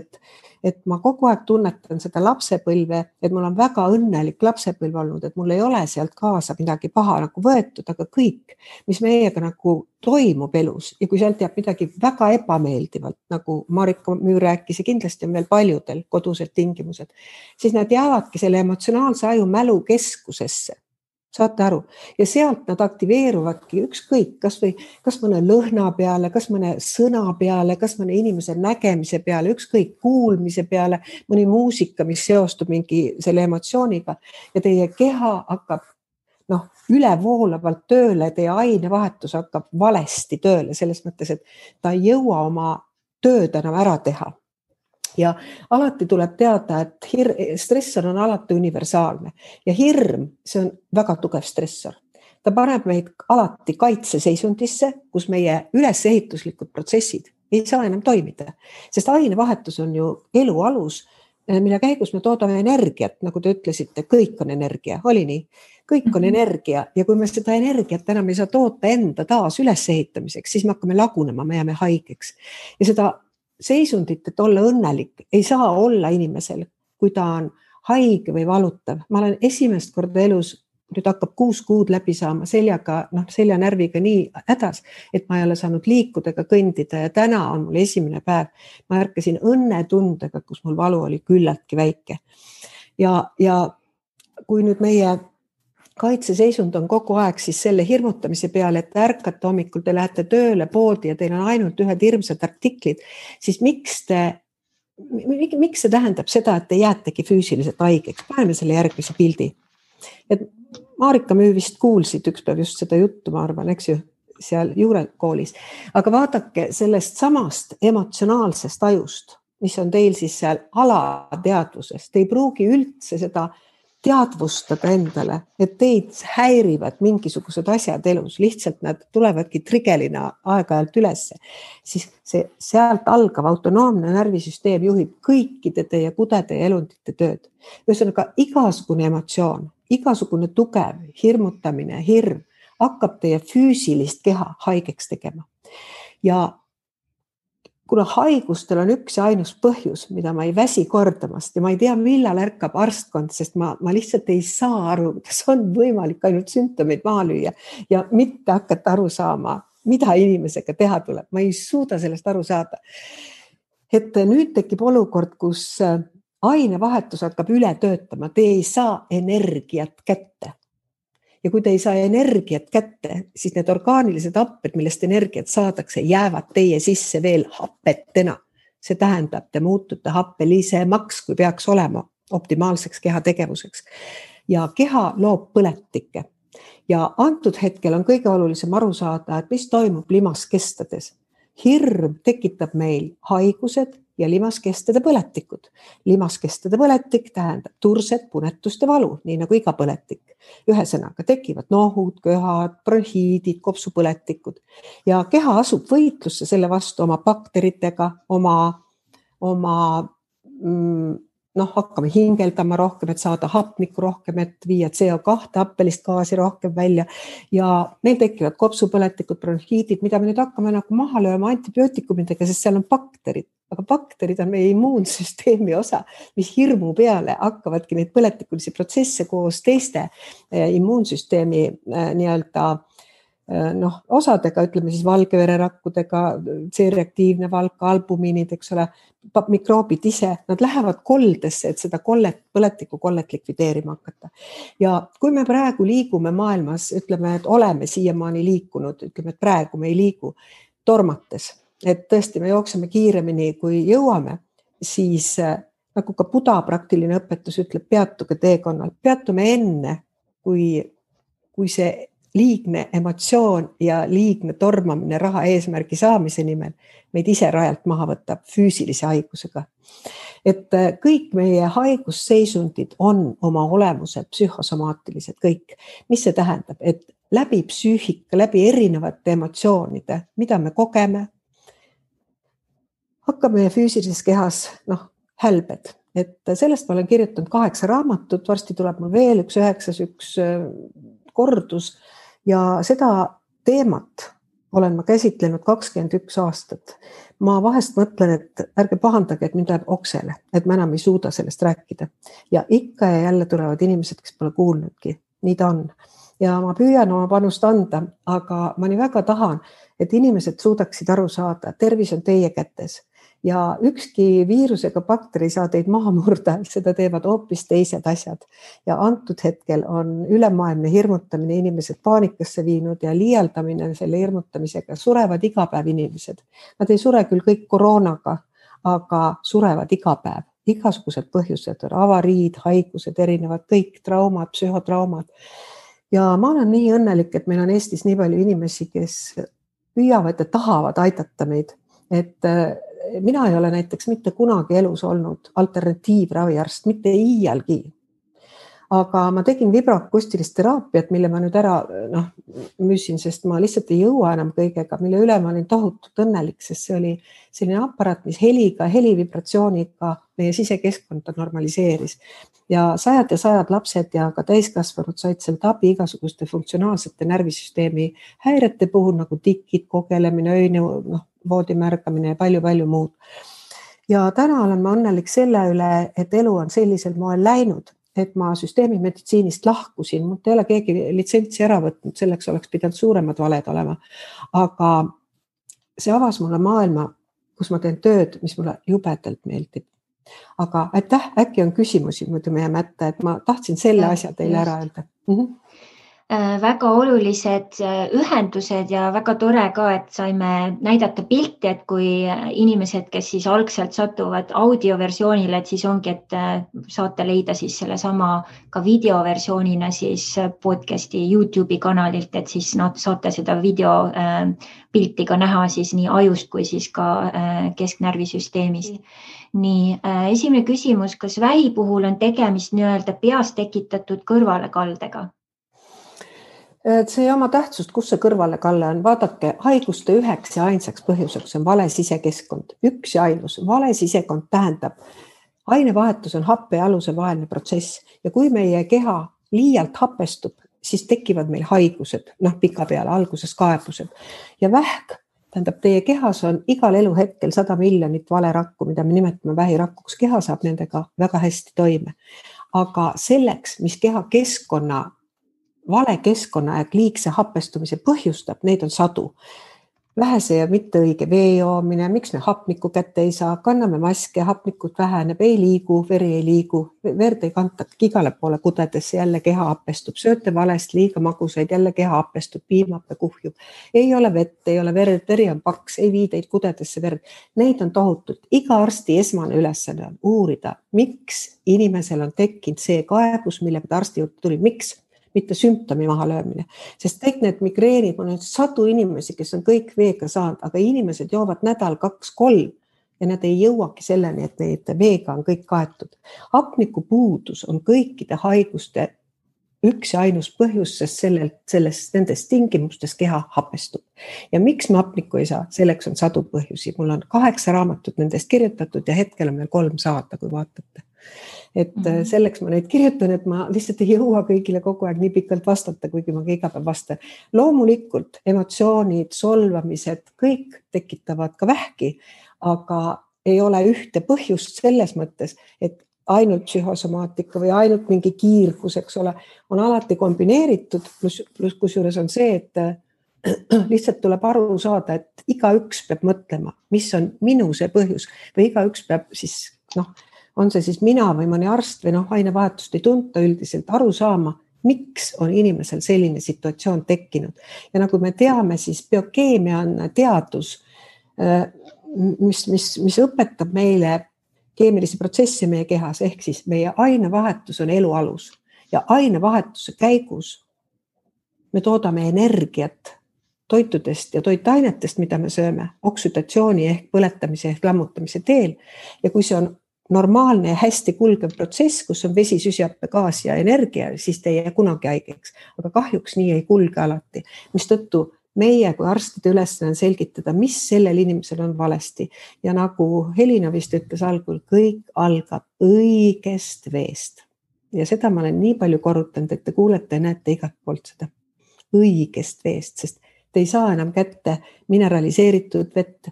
et ma kogu aeg tunnetan seda lapsepõlve, et mul on väga õnnelik lapsepõlv olnud, et mul ei ole sealt kaasa midagi paha nagu võetud, aga kõik, mis meiega nagu toimub elus ja kui sealt jääb midagi väga ebameeldivalt, nagu Marika Müür rääkis ja kindlasti on veel paljudel kodused tingimused, siis nad jäävadki selle emotsionaalse aju mälu keskusesse. Saate aru? Ja sealt nad aktiveeruvadki ükskõik, kas mõne lõhna peale, kas mõne sõna peale, kas mõne inimese nägemise peale, ükskõik kuulmise peale, mõni muusika, mis seostub mingi selle emotsiooniga ja teie keha hakkab ülevoolavalt tööle, teie ainevahetus hakkab valesti tööle, selles mõttes, et ta ei jõua oma tööd enam ära teha. Ja alati tuleb teada, et stressor on alati universaalne ja hirm, see on väga tugev stressor. Ta paneb meid alati kaitseseisundisse, kus meie ülesehituslikud protsessid ei saa enam toimida, sest ainevahetus on ju elu alus, mille käigus me toodame energiat, nagu te ütlesite, kõik on energia, oli nii? Kõik on energia ja kui me seda energiat enam ei saa toota enda taas ülesehitamiseks, siis me hakkame lagunema, me jääme haigeks ja seda seisundit, et olla õnnelik, ei saa olla inimesel, kui ta on haige või valutav. Ma olen esimest korda elus, nüüd hakkab 6 kuud läbi saama seljanärviga nii hädas, et ma ei ole saanud liikuda ega kõndida ja täna on mul esimene päev. Ma ärkasin õnnetundega, kus mul valu oli küllaltki väike. Ja kui nüüd meie kaitseseisund on kogu aeg siis selle hirmutamise peale, et ärkate hommikul, te lähete tööle poodi ja teil on ainult ühed hirmsad artiklid, siis miks see tähendab seda, et te jäätegi füüsiliselt haigeks? Paneme selle järgmise pildi. Et Marika Müür vist kuulsid üks päev just seda juttu, ma arvan, eks ju, seal juurekoolis. Aga vaadake sellest samast emotsionaalsest ajust, mis on teil siis seal alateadvuses. Te ei pruugi üldse seda teadvustada endale, et teid häirivad mingisugused asjad elus, lihtsalt nad tulevadki trigelina aeg-ajalt ülesse, siis sealt algav autonoomne närvisüsteem juhib kõikide teie kudede ja elundite tööd. Ühesõnaga, igasugune emotsioon, igasugune tugev hirmutamine, hirm hakkab teie füüsilist keha haigeks tegema. Ja kuna haigustel on üks ja ainus põhjus, mida ma ei väsi kordamast ja ma ei tea, millal ärkab arstkond, sest ma lihtsalt ei saa aru, kas on võimalik ainult sümptomeid maha lüüa ja mitte hakata aru saama, mida inimesega teha tuleb. Ma ei suuda sellest aru saada. Et nüüd tekib olukord, kus ainevahetus hakkab üle töötama, te ei saa energiat kätte. Ja kui te ei saa energiat kätte, siis need orgaanilised happed, millest energiat saadakse, jäävad teie sisse veel happetena. See tähendab, te muutute happelisemaks, kui peaks olema optimaalseks keha tegevuseks. Ja keha loob põletikke. Ja antud hetkel on kõige olulisem aru saada, et mis toimub limaskestades. Hirm tekitab meil haigused ja limaskestade põletikud. Limaskestade põletik tähendab turset, punetust ja valu, nii nagu iga põletik. Ühesõnaga tekivad nohud, köhad, bronhiidid, kopsupõletikud ja keha asub võitlusse selle vastu oma bakteritega, hakkame hingeldama rohkem, et saada hapnikku rohkem, et viia CO2 happelist gaasi rohkem välja ja meil tekivad kopsupõletikud, bronhiidid, mida me nüüd hakkame nagu maha lööma antibiootikumidega, sest seal on bakterid. Aga bakterid on meie immuunsüsteemi osa, mis hirmu peale hakkavadki neid põletikulisi protsesse koos teiste immuunsüsteemi osadega, ütleme siis valgevererakkudega, C-reaktiivne valk, albumiinid, eks ole, mikroobid ise, nad lähevad koldesse, et seda põletiku kollet likvideerima hakata. Ja kui me praegu liigume maailmas, ütleme, et oleme siiamaani liikunud, ütleme, et praegu me ei liigu tormates, et tõesti me jookseme kiiremini, kui jõuame, siis nagu ka Buda praktiline õpetus ütleb, peatuge teekonnal. Peatume enne, kui see liigne emotsioon ja liigne tormamine raha eesmärgi saamise nimel meid ise rajalt maha võtab füüsilise haigusega. Et kõik meie haigusseisundid on oma olemuselt psühhosomaatilised kõik. Mis see tähendab? Et läbi psüühika, läbi erinevate emotsioonide, mida me kogeme, hakkab meie füüsilises kehas hälbed. Et sellest ma olen kirjutanud 8 raamatut, varsti tuleb mul veel üks 9, üks kordus ja seda teemat olen ma käsitlenud 21 aastat. Ma vahest mõtlen, et ärge pahandage, et mind läheb oksele, et ma enam ei suuda sellest rääkida. Ja ikka ja jälle tulevad inimesed, kes pole kuulnudki. Nii ta on. Ja ma püüan oma panust anda, aga ma nii väga tahan, et inimesed suudaksid aru saada, tervis on teie kätes. Ja ükski viirusega bakteri saa teid maha murda, seda teevad hoopis teised asjad. Ja antud hetkel on ülemaailmne hirmutamine inimesed paanikasse viinud ja liialdamine selle hirmutamisega. Surevad iga päev inimesed. Nad ei sure küll kõik koroonaga, aga surevad iga päev. Igasugused põhjused, avariid, haigused, erinevad, kõik traumad, psühhotraumad. Ja ma olen nii õnnelik, et meil on Eestis nii palju inimesi, kes püüavad ja tahavad aidata meid. Et mina ei ole näiteks mitte kunagi elus olnud alternatiivraviarst, mitte iialgi. Aga ma tegin vibroakustilist teraapiat, mille ma nüüd ära müüsin, sest ma lihtsalt ei jõua enam kõigega, mille üle ma olin tohutult õnnelik, sest see oli selline aparaat, mis helivibratsiooniga meie sisekeskkonda normaliseeris. Ja sajad lapsed ja ka täiskasvanud said sealt abi igasuguste funktsionaalsete närvisüsteemi häirete puhul, nagu tikid, kogelemine, öine, voodimärgamine ja palju muud. Ja täna olen ma õnnelik selle üle, et elu on sellisel moel läinud, et ma süsteemimeditsiinist lahkusin. Mult ei ole keegi litsentsi ära võtnud, selleks oleks pidanud suuremad valed olema. Aga see avas mulle maailma, kus ma teen tööd, mis mulle jubedalt meeldib. Aga aitäh, äkki on küsimusi, muidu me jääme ette, et ma tahtsin selle asja teile ära öelda. Väga olulised ühendused ja väga tore ka, et saime näidata pilti, et kui inimesed, kes siis algselt satuvad audioversioonile, et siis ongi, et saate leida siis selle sama ka videoversioonina siis podcasti YouTube'i kanalilt, et siis saate seda videopilti ka näha siis nii ajust kui siis ka kesknärvisüsteemist. Nii, esimene küsimus, kas vähi puhul on tegemist nii-öelda peas tekitatud kõrvalekaldega? See oma tähtsust, kus see kõrvalekalle on. Vaadake, haiguste üheks ja ainsaks põhjuseks on vale sisekeskkond. Üks ja ainus. Vale sisekond tähendab, ainevahetus on happe ja aluse vaheline protsess. Ja kui meie keha liialt hapestub, siis tekivad meil haigused, pika peale, alguses kaebused. Ja vähk tähendab, teie kehas on igal eluhetkel 100 miljonit valerakku, mida me nimetame vähirakkuks. Keha saab nendega väga hästi toime. Aga selleks, mis keha keskkonna vale keskkonna ja liigse hapestumise põhjustab, neid on sadu. Vähese ja mitte õige vee joomine, miks me hapnikku kätte ei saa, kanname maske, hapnikut väheneb, ei liigu, veri ei liigu, verd ei kanta igale poole kudedesse, jälle keha hapestub, sööte valest, liiga magusaid, jälle keha hapestub, piimab ja kuhjub. Ei ole vett, ei ole verd, veri on paks, ei viideid kudedesse verd. Neid on tohutult. Iga arsti esmane ülesanne on uurida, miks inimesel on tekkinud see kaebus, millega ta arsti juurde tuli, miks? Mitte sümptomi maha löömine, sest kõik need migreenid, on sadu inimesi, kes on kõik veega saanud, aga inimesed joovad nädal 2-3 ja nad ei jõuagi selleni, et neid veega on kõik kaetud. Hapniku puudus on kõikide haiguste üks ja ainus põhjus, sest nendes tingimustes keha hapestub. Ja miks me hapnikku ei saa? Selleks on sadu põhjusi. Mul on 8 raamatut nendest kirjutatud ja hetkel on meil 3 saata, kui vaatate. Et selleks ma neid kirjutan, et ma lihtsalt ei jõua kõigile kogu aeg nii pikalt vastata, kuigi ma iga päev vastan. Loomulikult emotsioonid, solvamised, kõik tekitavad ka vähki, aga ei ole ühte põhjust selles mõttes, et ainult psühhosomaatika või ainult mingi kiirgus, eks ole, on alati kombineeritud, plus kusjuures on see, et lihtsalt tuleb aru saada, et igaüks peab mõtlema, mis on minu see põhjus või igaüks peab siis, on see siis mina või mõni arst või ainevahetust ei tunta üldiselt aru saama, miks on inimesel selline situatsioon tekkinud. Ja nagu me teame, siis biokeemia on teadus, mis õpetab meile keemilisi protsesse meie kehas, ehk siis meie ainevahetus on elu alus ja ainevahetuse käigus me toodame energiat toitudest ja toitainetest, mida me sööme, oksüdatsiooni ehk põletamise ehk lammutamise teel. Ja kui see on normaalne ja hästi kulgev protsess, kus on vesi, süsihappegaas ja energia, siis te ei jää kunagi haigeks. Aga kahjuks nii ei kulge alati, mistõttu meie kui arstide ülesanne on selgitada, mis sellel inimesel on valesti. Ja nagu Helina vist ütles algul, kõik algab õigest veest. Ja seda ma olen nii palju korrutanud, et te kuulete ja näete igalt poolt seda õigest veest, sest te ei saa enam kätte mineraliseeritud vett,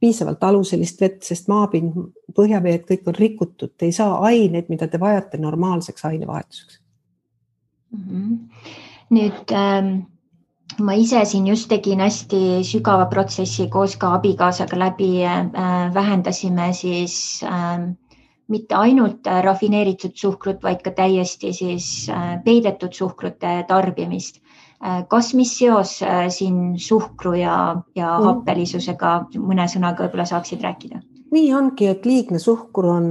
piisavalt aluselist vett, sest maapind, põhjaveed, kõik on rikutud. Te ei saa aineid, mida te vajate normaalseks ainevahetuseks. Nüüd ma ise siin just tegin hästi sügava protsessi koos ka abikaasaga läbi, vähendasime siis mitte ainult rafineeritud suhkrut, vaid ka täiesti siis peidetud suhkrute tarbimist. Kas mis seos siin suhkru ja happelisusega mõne sõnaga võib-olla saaksid rääkida? Nii ongi, et liigne suhkur on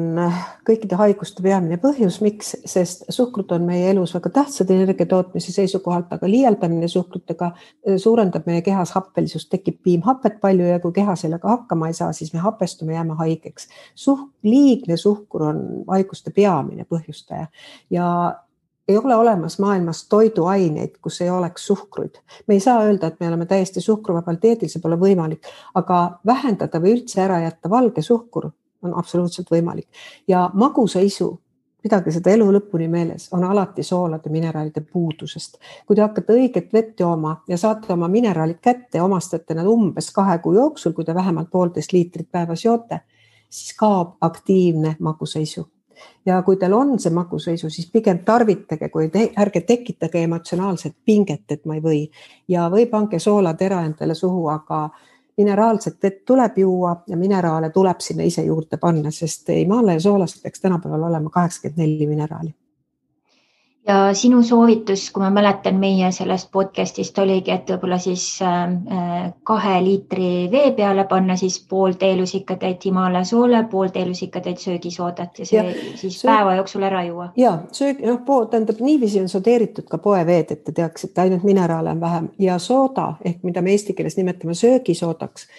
kõikide haiguste peamine põhjus, miks, sest suhkrut on meie elus väga tähtsad energiatootmise seisukohalt, aga liialdamine suhkrutega suurendab meie kehas happelisust, tekib piimhapet palju ja kui keha sellega hakkama ei saa, siis me hapestume, jääme haigeks. Liigne suhkur on haiguste peamine põhjustaja ja ei ole olemas maailmas toiduaineid, kus ei oleks suhkruid. Me ei saa öelda, et me oleme täiesti suhkruvabal dieedil, see pole võimalik, aga vähendada või üldse ära jätta valge suhkur on absoluutselt võimalik. Ja magusaisu, pidage seda elu lõpuni meeles, on alati soolade mineraalide puudusest. Kui te hakkate õiget vett jooma ja saate oma mineraalid kätte ja omastate nad umbes 2 kuu jooksul, kui te vähemalt 1,5 liitrit päevas joote, siis kaob aktiivne magusaisu. Ja kui teil on see magusaisu, siis pigem tarvitage, kui ärge tekitage emotsionaalset pinget, et ma ei või. Ja või pange soolatera endale suhu, aga mineraalset vett tuleb juua ja mineraale tuleb sinna ise juurde panna, sest imaale ja soolast peaks tänapäeval olema 84 mineraali. Ja sinu soovitus, kui ma mäletan meie sellest podcastist oligi, et võib-olla siis 2 liitri vee peale panna siis pool teelusikatäit Himalaia soole, pool teelusikatäit söögisoodat ja see siis päeva jooksul ära juua. Ja, tähendab, niiviisi on sodeeritud ka poeveed, et te teaks, et ainult mineraale on vähem ja sooda, ehk mida me eesti keeles nimetame söögisoodaks,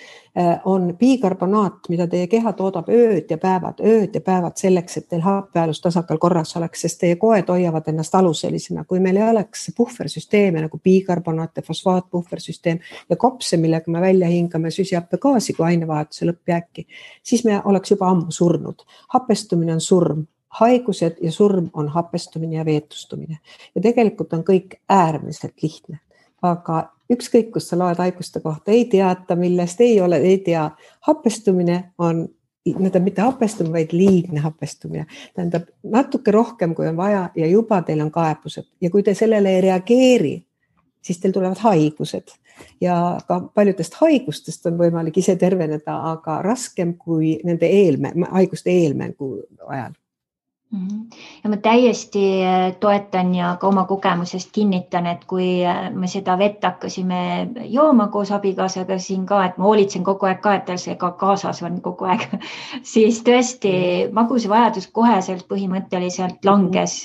on bikarbonaat, mida teie keha toodab ööd ja päevad selleks, et teil happealus tasakaal korras oleks, sest teie koed hoiavad ennast aluselisena. Kui meil ei oleks puhversüsteeme nagu bikarbonaat ja fosfaatpuhversüsteem ja kopse, millega me välja hingame süsihappegaasi kui ainevahetuse lõppjääki, siis me oleks juba ammu surnud. Hapestumine on surm. Haigused ja surm on hapestumine ja veetustumine. Ja tegelikult on kõik äärmiselt lihtne. Aga ükskõik, kus sa loed haiguste kohta, ei teata, millest ei tea. Hapestumine on, mitte hapestumine, vaid liigne hapestumine. Tähendab natuke rohkem, kui on vaja ja juba teil on kaebused. Ja kui te sellele ei reageeri, siis teil tulevad haigused. Ja ka paljudest haigustest on võimalik ise terveneda, aga raskem kui nende haiguste eelmängu ajal. Ja ma täiesti toetan ja ka oma kogemusest kinnitan, et kui me seda vett hakkasime jooma koos abikaasaga siin ka, et ma hoolitsen kogu aeg ka, et tal see ka kaasas on kogu aeg, siis tõesti magusevajadus koheselt põhimõtteliselt langes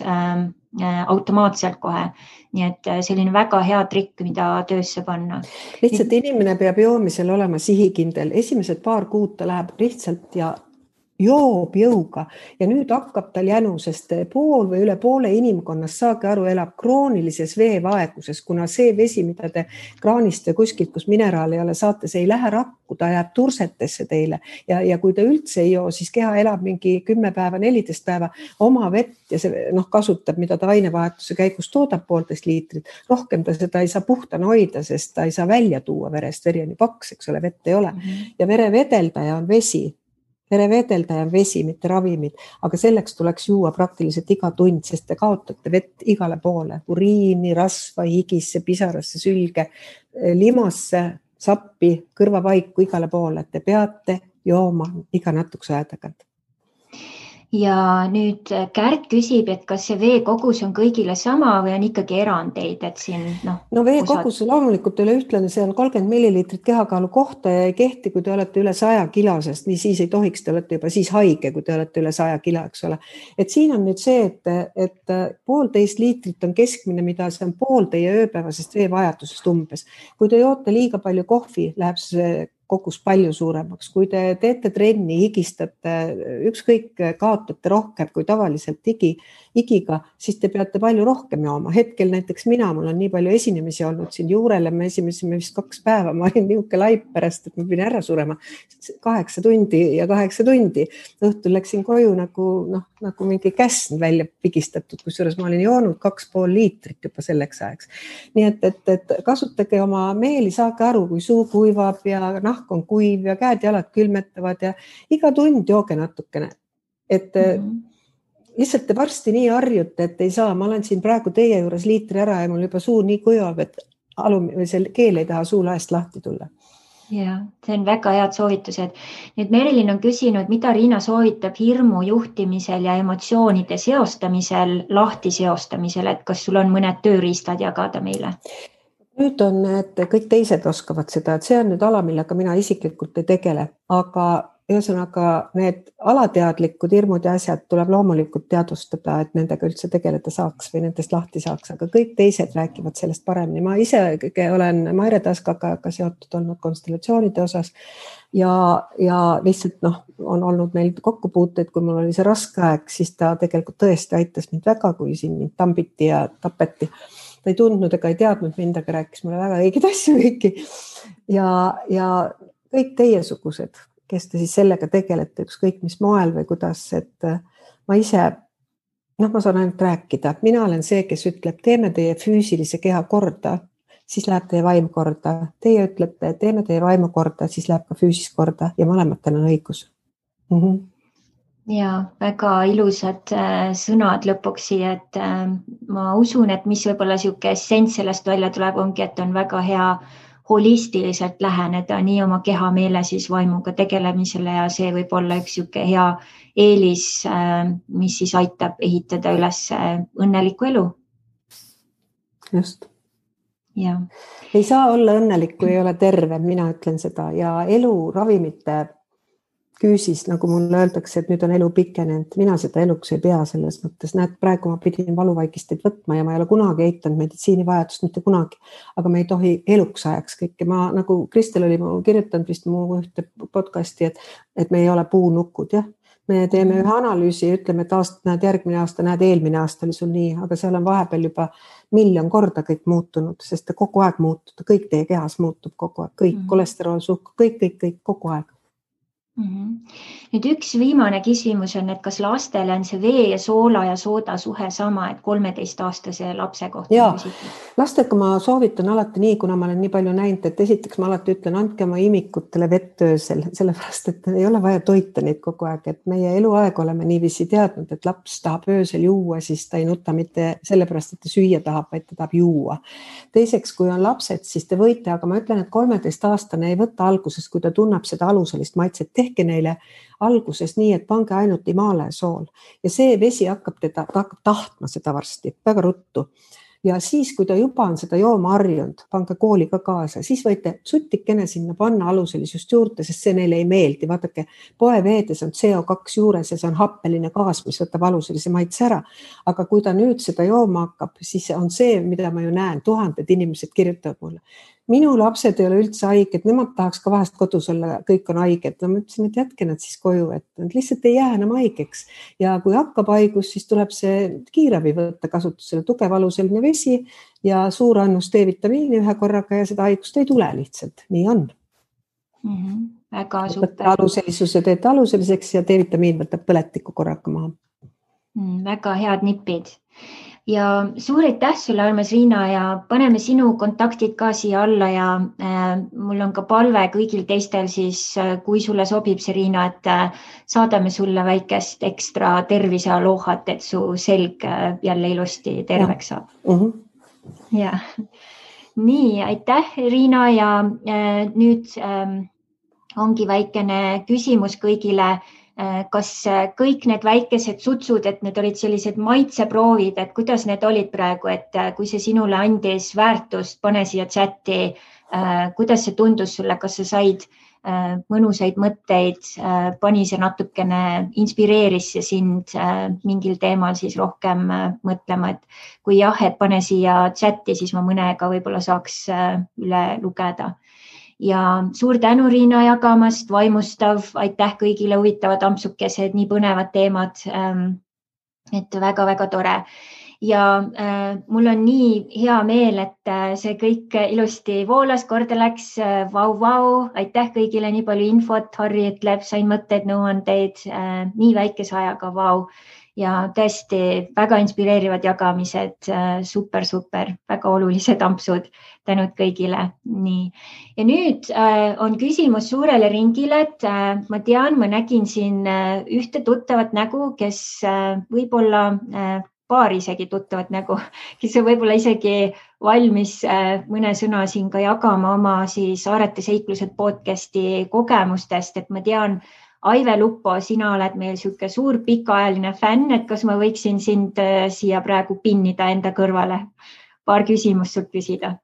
automaatselt kohe. Nii et selline väga hea trikk, mida töösse panna. Lihtsalt inimene peab joomisel olema sihikindel. Esimesed 2 kuud ta läheb lihtsalt ja joob jõuga ja nüüd hakkab tal jänu, sest pool või üle poole inimkonnast, saage aru, elab kroonilises veevaeguses, kuna see vesi, mida te kraanist ja kuskilt, kus mineraal ei ole, saate, see ei lähe rakku, ta jääb tursetesse teile ja kui te üldse ei joo, siis keha elab mingi 10 päeva, 14 päeva oma vett ja see kasutab, mida ta ainevahetuse käigus toodab 1,5 liitrit. Rohkem ta seda ei saa puhtana hoida, sest ta ei saa välja tuua verest, veri on ju paks, eks ole, vett ei ole. Ja verevedeldaja on vesi. Verevedeldaja on vesi, mitte ravimid, aga selleks tuleks juua praktiliselt iga tund, sest te kaotate vett igale poole, uriini, rasva, higisse, pisarasse, sülge, limasse, sappi, kõrvapaiku igale poole, et te peate jooma iga natukese aja tagant. Ja nüüd Kärt küsib, et kas see veekogus on kõigile sama või on ikkagi erandeid, et siin No veekogus loomulikult üle ühtlane, see on 30 milliliitrit kehakaalu kohta ja ei kehti, kui te olete üle 100 kilosest, nii siis ei tohiks, te olete juba siis haige, kui te olete üle 100 kilo, eks ole. Et siin on nüüd see, et 1,5 liitrit on keskmine, mida see on pool teie ööpäevasest veevajadusest umbes. Kui te joote liiga palju kohvi, läheb see kogus palju suuremaks. Kui te teete trenni, higistate, ükskõik kaotate rohkem kui tavaliselt igiga, siis te peate palju rohkem jooma. Hetkel näiteks mul on nii palju esinemisi olnud siin Juurele, me esinesime vist 2 päeva, ma olin niuke laip pärast, et ma pidin ära surema 8 tundi ja 8 tundi. Õhtul läksin koju nagu mingi käsn välja pigistatud, kusjuures ma olin joonud 2,5 liitrit juba selleks ajaks. Nii et kasutage oma meeli, saage aru, kui suu kuivab ja nahk on kuiv ja käed-jalad külmetavad ja iga tund jooge natukene. Et lihtsalt te varsti nii harjute, et ei saa. Ma olen siin praegu teie juures liitri ära ja mul juba suu nii kuivab, et keel ei taha suu laest lahti tulla. Ja, see on väga head soovitused. Nüüd Merilin on küsinud, mida Riina soovitab hirmu juhtimisel ja emotsioonide seostamisel, lahti seostamisel, et kas sul on mõned tööriistad jagada meile? Nüüd on, et kõik teised oskavad seda, et see on nüüd ala, millega mina isiklikult ei tegele, aga ühesõnaga need alateadlikud hirmud ja asjad tuleb loomulikult teadvustada, et nendega üldse tegeleda saaks või nendest lahti saaks, aga kõik teised räägivad sellest paremini. Ma ise olen Maire Taskaga seotud olnud konstellatsioonide osas ja lihtsalt on olnud meil kokkupuuteid, kui mul oli see raske aeg, siis ta tegelikult tõesti aitas mind väga, kui siin mind tambiti ja tapeti. Ta ei tundnud ega ei teadnud mind, aga rääkis mulle väga õigeid asju kõiki ja kõik teiesugused, kes te siis sellega tegelete, ükskõik mis moel või kuidas, et ma ise, ma saan ainult rääkida. Mina olen see, kes ütleb, teeme teie füüsilise keha korda, siis läheb teie vaim korda. Teie ütlete, teeme teie vaimu korda, siis läheb ka füüsis korda ja mõlematel on õigus. Ja väga ilusad sõnad lõpuks siia, et ma usun, et mis võib-olla siuke essents sellest välja tuleb, ongi, et on väga hea holistiliselt läheneda nii oma keha, meele siis vaimuga tegelemisele ja see võib olla üks siuke hea eelis, mis siis aitab ehitada üles õnnelikku elu. Just. Ja. Ei saa olla õnnelik, kui ei ole terve, mina ütlen seda ja elu ravimite küüsis, nagu mulle öeldakse, et nüüd on elu pikenenud. Mina seda eluks ei pea selles mõttes. Näed, praegu ma pidin valuvaigisteid võtma ja ma ei ole kunagi eitanud meditsiinivajadust, mitte kunagi. Aga me ei tohi eluks ajaks kõike. Ma nagu Kristel oli kirjutanud vist mu ühte podcasti, et me ei ole puunukud. Jah? Me teeme ühe analüüsi ja ütleme, et järgmine aasta, eelmine aasta oli sul nii, aga seal on vahepeal juba 1 miljon korda kõik muutunud, sest ta kogu aeg muutub. Kõik teie kehas muutub kogu aeg. Kõik, kolesterool, suhk, kõik kogu aeg. Nüüd üks viimane küsimus on, et kas lastele on see vee ja soola ja sooda suhe sama, et 13-aastase lapse kohta? Jaa, lastega ma soovitan alati nii, kuna ma olen nii palju näinud, et esiteks ma alati ütlen, andke oma imikutele vett öösel, sellepärast, et ei ole vaja toita neid kogu aeg, et meie eluaeg oleme niiviisi teadnud, et laps tahab öösel juua, siis ta ei nuta mitte sellepärast, et ta süüa tahab, vaid ta tahab juua. Teiseks, kui on lapsed, siis te võite, aga ma ütlen, et 13-aastane ei võtta alguses, kui ta tunneb seda aluselist maitset, tehke neile alguses nii, et pange ainult Himalaia sool ja see vesi hakkab tahtma seda varsti, väga ruttu. Ja siis, kui ta juba on seda jooma harjunud, pange kooli ka kaasa, siis võite sutikene sinna panna aluselisust juurde, sest see neile ei meeldi. Vaadake, poeveedes on CO2 juures ja see on happeline gaas, mis võtab aluselise maitse ära. Aga kui ta nüüd seda jooma hakkab, siis on see, mida ma ju näen, 1000 inimesed kirjutavad mulle. Minu lapsed ei ole üldse haiged, nemad tahaks ka vahest kodus olla, kõik on haiged. Ma ütlesin, et jätke nad siis koju, et nad lihtsalt ei jää enam haigeks. Ja kui hakkab haigus, siis tuleb see kiirabi võtta kasutusele, tugev aluseline vesi ja suur annus D-vitamiini ühe korraga ja seda haigust ei tule lihtsalt. Nii on. Väga super. Aluselisuse teete aluseliseks ja D-vitamiin võtab põletiku korraga maha. Väga head nipid. Ja suur aitäh sulle, armas Riina, ja paneme sinu kontaktid ka siia alla ja mul on ka palve kõigil teistel siis, kui sulle sobib see, Riina, et saadame sulle väikest ekstra tervise aloohat, et su selg jälle ilusti terveks saab. Ja. Nii, aitäh, Riina, ja nüüd ongi väikene küsimus kõigile. Kas kõik need väikesed sutsud, et need olid sellised maitseproovid, et kuidas need olid praegu, et kui see sinule andis väärtust, pane siia chati, kuidas see tundus sulle, kas sa said mõnusaid mõtteid, pani see natukene, inspireeris see sind mingil teemal siis rohkem mõtlema, et kui jah, et pane siia chati, siis ma mõnega võib-olla saaks üle lugeda. ja suur tänu, Riina, jagamast, vaimustav, aitäh kõigile, huvitavad ampsukesed, nii põnevad teemad. Et väga-väga tore. Ja mul on nii hea meel, et see kõik ilusti voolas, korda läks. Vau, aitäh kõigile, nii palju infot. Harri ütleb, sain mõtteid, nõuandeid, nii väikese ajaga, vau. Ja tõesti väga inspireerivad jagamised, super, väga olulised ampsud, tänud kõigile. Nii. Ja nüüd on küsimus suurele ringile, et ma tean, ma nägin siin ühte tuttavat nägu, kes võib-olla paar isegi tuttavat nägu, kes on võib-olla isegi valmis mõne sõna siin ka jagama oma siis Aarete seiklused podcasti kogemustest, et ma tean, Aive Lupo, sina oled meil siuke suur pikaajaline fänn, et kas ma võiksin sind siia praegu pinnida enda kõrvale? Paar küsimust sult küsida.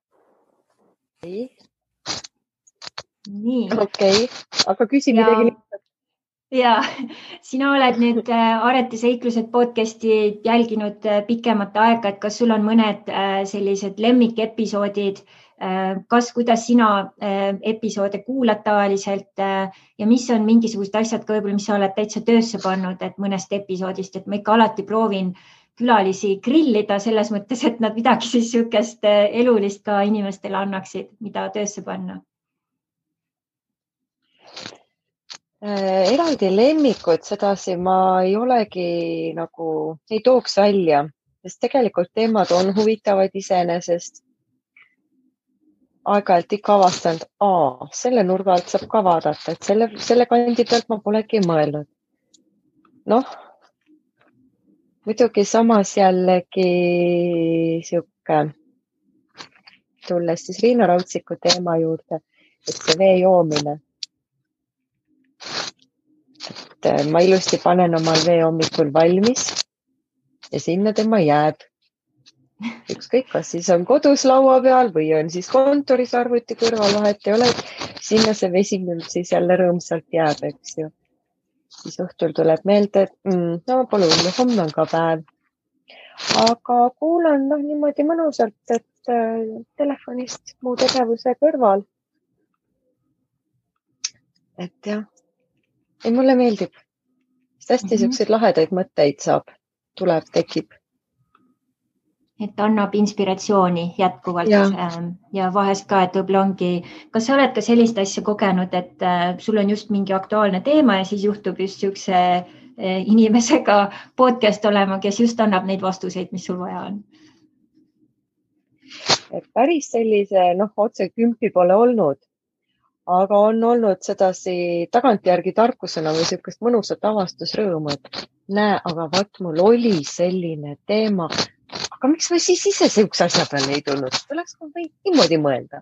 Nii. Okei, aga küsi midagi lihtsalt. Ja, sina oled nüüd Aarete seiklused podcasti jälginud pikemat aega, et kas sul on mõned sellised lemmikepisoodid, kuidas sina episoode kuulad tavaliselt ja mis on mingisugused asjad ka võib-olla, mis sa oled täitsa töösse pannud, et mõnest episoodist, et ma ikka alati proovin külalisi grillida selles mõttes, et nad midagi siis niisugust elulist ka inimestele annaksid, mida töösse panna. Eraldi lemmikud, sedasi ma ei olegi nagu, ei tooks välja, sest tegelikult teemad on huvitavad iseenesest. Aeg-ajalt ikka avastanud, selle nurga alt saab ka vaadata, et selle kandi pealt ma polegi mõelnud. Noh, muidugi samas jällegi siuke, tulles siis Riina Rautsiku teema juurde, et see vee joomine. Et ma ilusti panen omal vee hommikul valmis ja sinna tema jääb. Ükskõik, kas siis on kodus laua peal või on siis kontoris arvuti kõrval, vahet ei ole, sinna see vesi siis jälle rõõmsalt jääb, eks ju. Siis õhtul tuleb meelde, et no pole hullu, homme on ka päev. Aga kuulan niimoodi mõnusalt, et telefonist muu tegevuse kõrval. Et jah, ei mulle meeldib. Hästi siukseid lahedaid mõtteid saab, tekib. Et annab inspiratsiooni jätkuvalt ja vahest ka, et võib-olla ongi, kas sa oled ka sellist asja kogenud, et sul on just mingi aktuaalne teema ja siis juhtub just siukse inimesega podcast olema, kes just annab neid vastuseid, mis sul vaja on? Et päris sellise, otse kümpi pole olnud, aga on olnud sedasi tagantjärgi tarkusena või siukest mõnusat avastusrõõmu, et näe, aga vaat mul oli selline teema. Aga miks ma siis ise siukse asja peale ei tulnud? Tuleks ma võin niimoodi mõelda.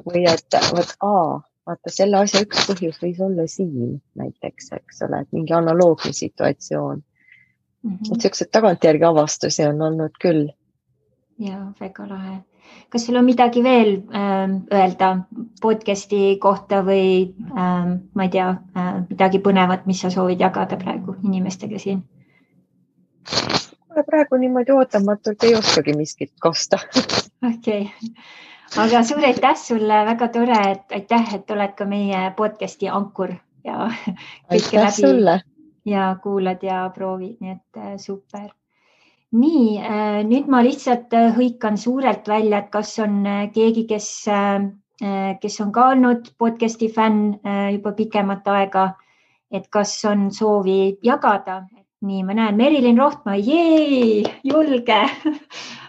Või et vaata, selle asja üks põhjus võis olla siin näiteks, eks ole, et mingi analoogne situatsioon. Et siuksed tagantjärgi avastusi on olnud küll. Ja, väga lahe. Kas sul on midagi veel öelda podcasti kohta või ma ei tea, midagi põnevat, mis sa soovid jagada praegu inimestega siin? Praegu niimoodi ootamatult ei oskagi miskit kosta. Okei. Aga suur aitäh sulle, väga tore, et aitäh, et oled ka meie podcasti ankur ja kõike läbi sulle. Ja kuulad ja proovid, nii et super. Nii, nüüd ma lihtsalt hõikan suurelt välja, et kas on keegi, kes on ka olnud podcasti fänn juba pikemat aega, et kas on soovi jagada. Nii, ma näen Merilin Rohtma, julge,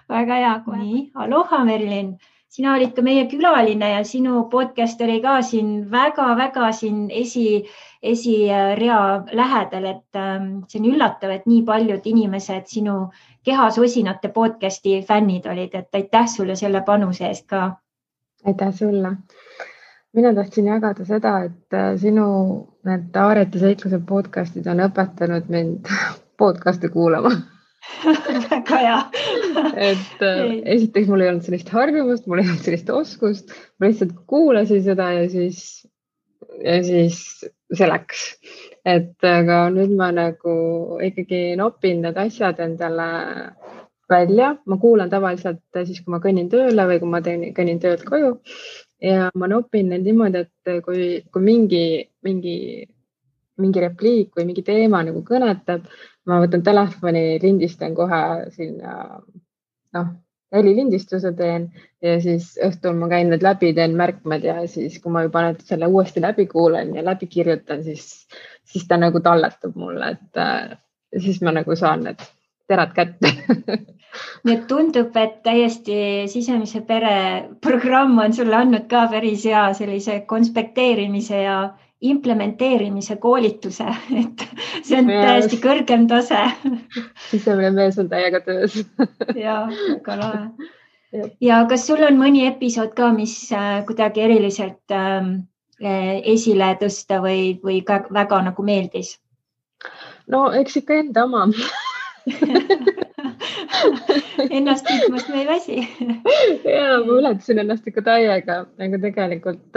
väga hea. Nii, aloha Merilin, sina olid ka meie külaline ja sinu podcast oli ka siin väga-väga siin esirea lähedal, et see on üllatav, et nii paljud inimesed sinu Kehasosinate podcasti fännid olid, et aitäh sulle selle panuse eest ka. Aitäh sulle. Mina tahtsin jagada seda, et sinu need Aarete seikluse podcastid on õpetanud mind podcasti kuulama. Väga hea. Et esiteks mul ei olnud sellist harjumust, mul ei olnud sellist oskust. Ma lihtsalt kuulasin seda ja siis see läks. Et aga nüüd ma nagu ikkagi nopin need asjad endale välja. Ma kuulan tavaliselt siis, kui ma kõnnin tööle või kui ma kõnnin töölt koju. ja ma nopin need niimoodi, et kui mingi repliik või mingi teema nagu kõnetab, ma võtan telefoni, lindistan kohe sinna, helilindistuse teen ja siis õhtul ma käin need läbi, teen märkmed ja siis, kui ma juba selle uuesti läbi kuulen ja läbi kirjutan, siis ta nagu talletab mulle, et siis ma nagu saan need terad kätte. Nii et tundub, et täiesti sisemise pere programm on sulle andnud ka päris hea sellise konspekteerimise ja implementeerimise koolituse, et see on täiesti kõrgem tase. Sisemine mees on täiega töös. Ja, väga lahe. Ja kas sul on mõni episood ka, mis kuidagi eriliselt esile tõsta või väga nagu meeldis? No eks ikka enda oma. Ennast kiitmast me ei väsi. Ja ma ületasin ennast ikka täiega, aga tegelikult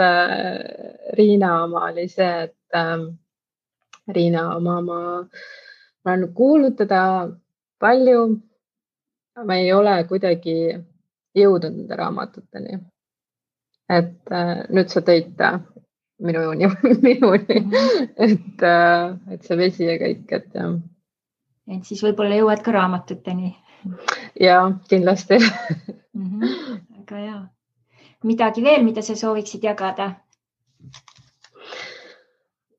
Riina oma oli see, et Riina oma ma olen kuulnud teda palju, ma ei ole kuidagi jõudnud nende raamatuteni. Et nüüd sa tõid ta minuni, et see vesi ja kõik, et jah. Et siis võib-olla jõuad ka raamatuteni. Ja, kindlasti. Väga hea. Midagi veel, mida sa sooviksid jagada?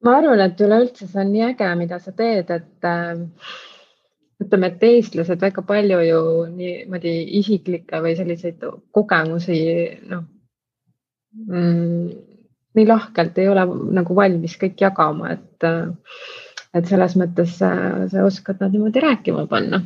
Ma arvan, et üleüldse see on nii äge, mida sa teed, et ütleme, et eestlased väga palju ju niimoodi isiklikke või selliseid kogemusi nii lahkelt ei ole nagu valmis kõik jagama, et selles mõttes sa oskad nad niimoodi rääkima panna.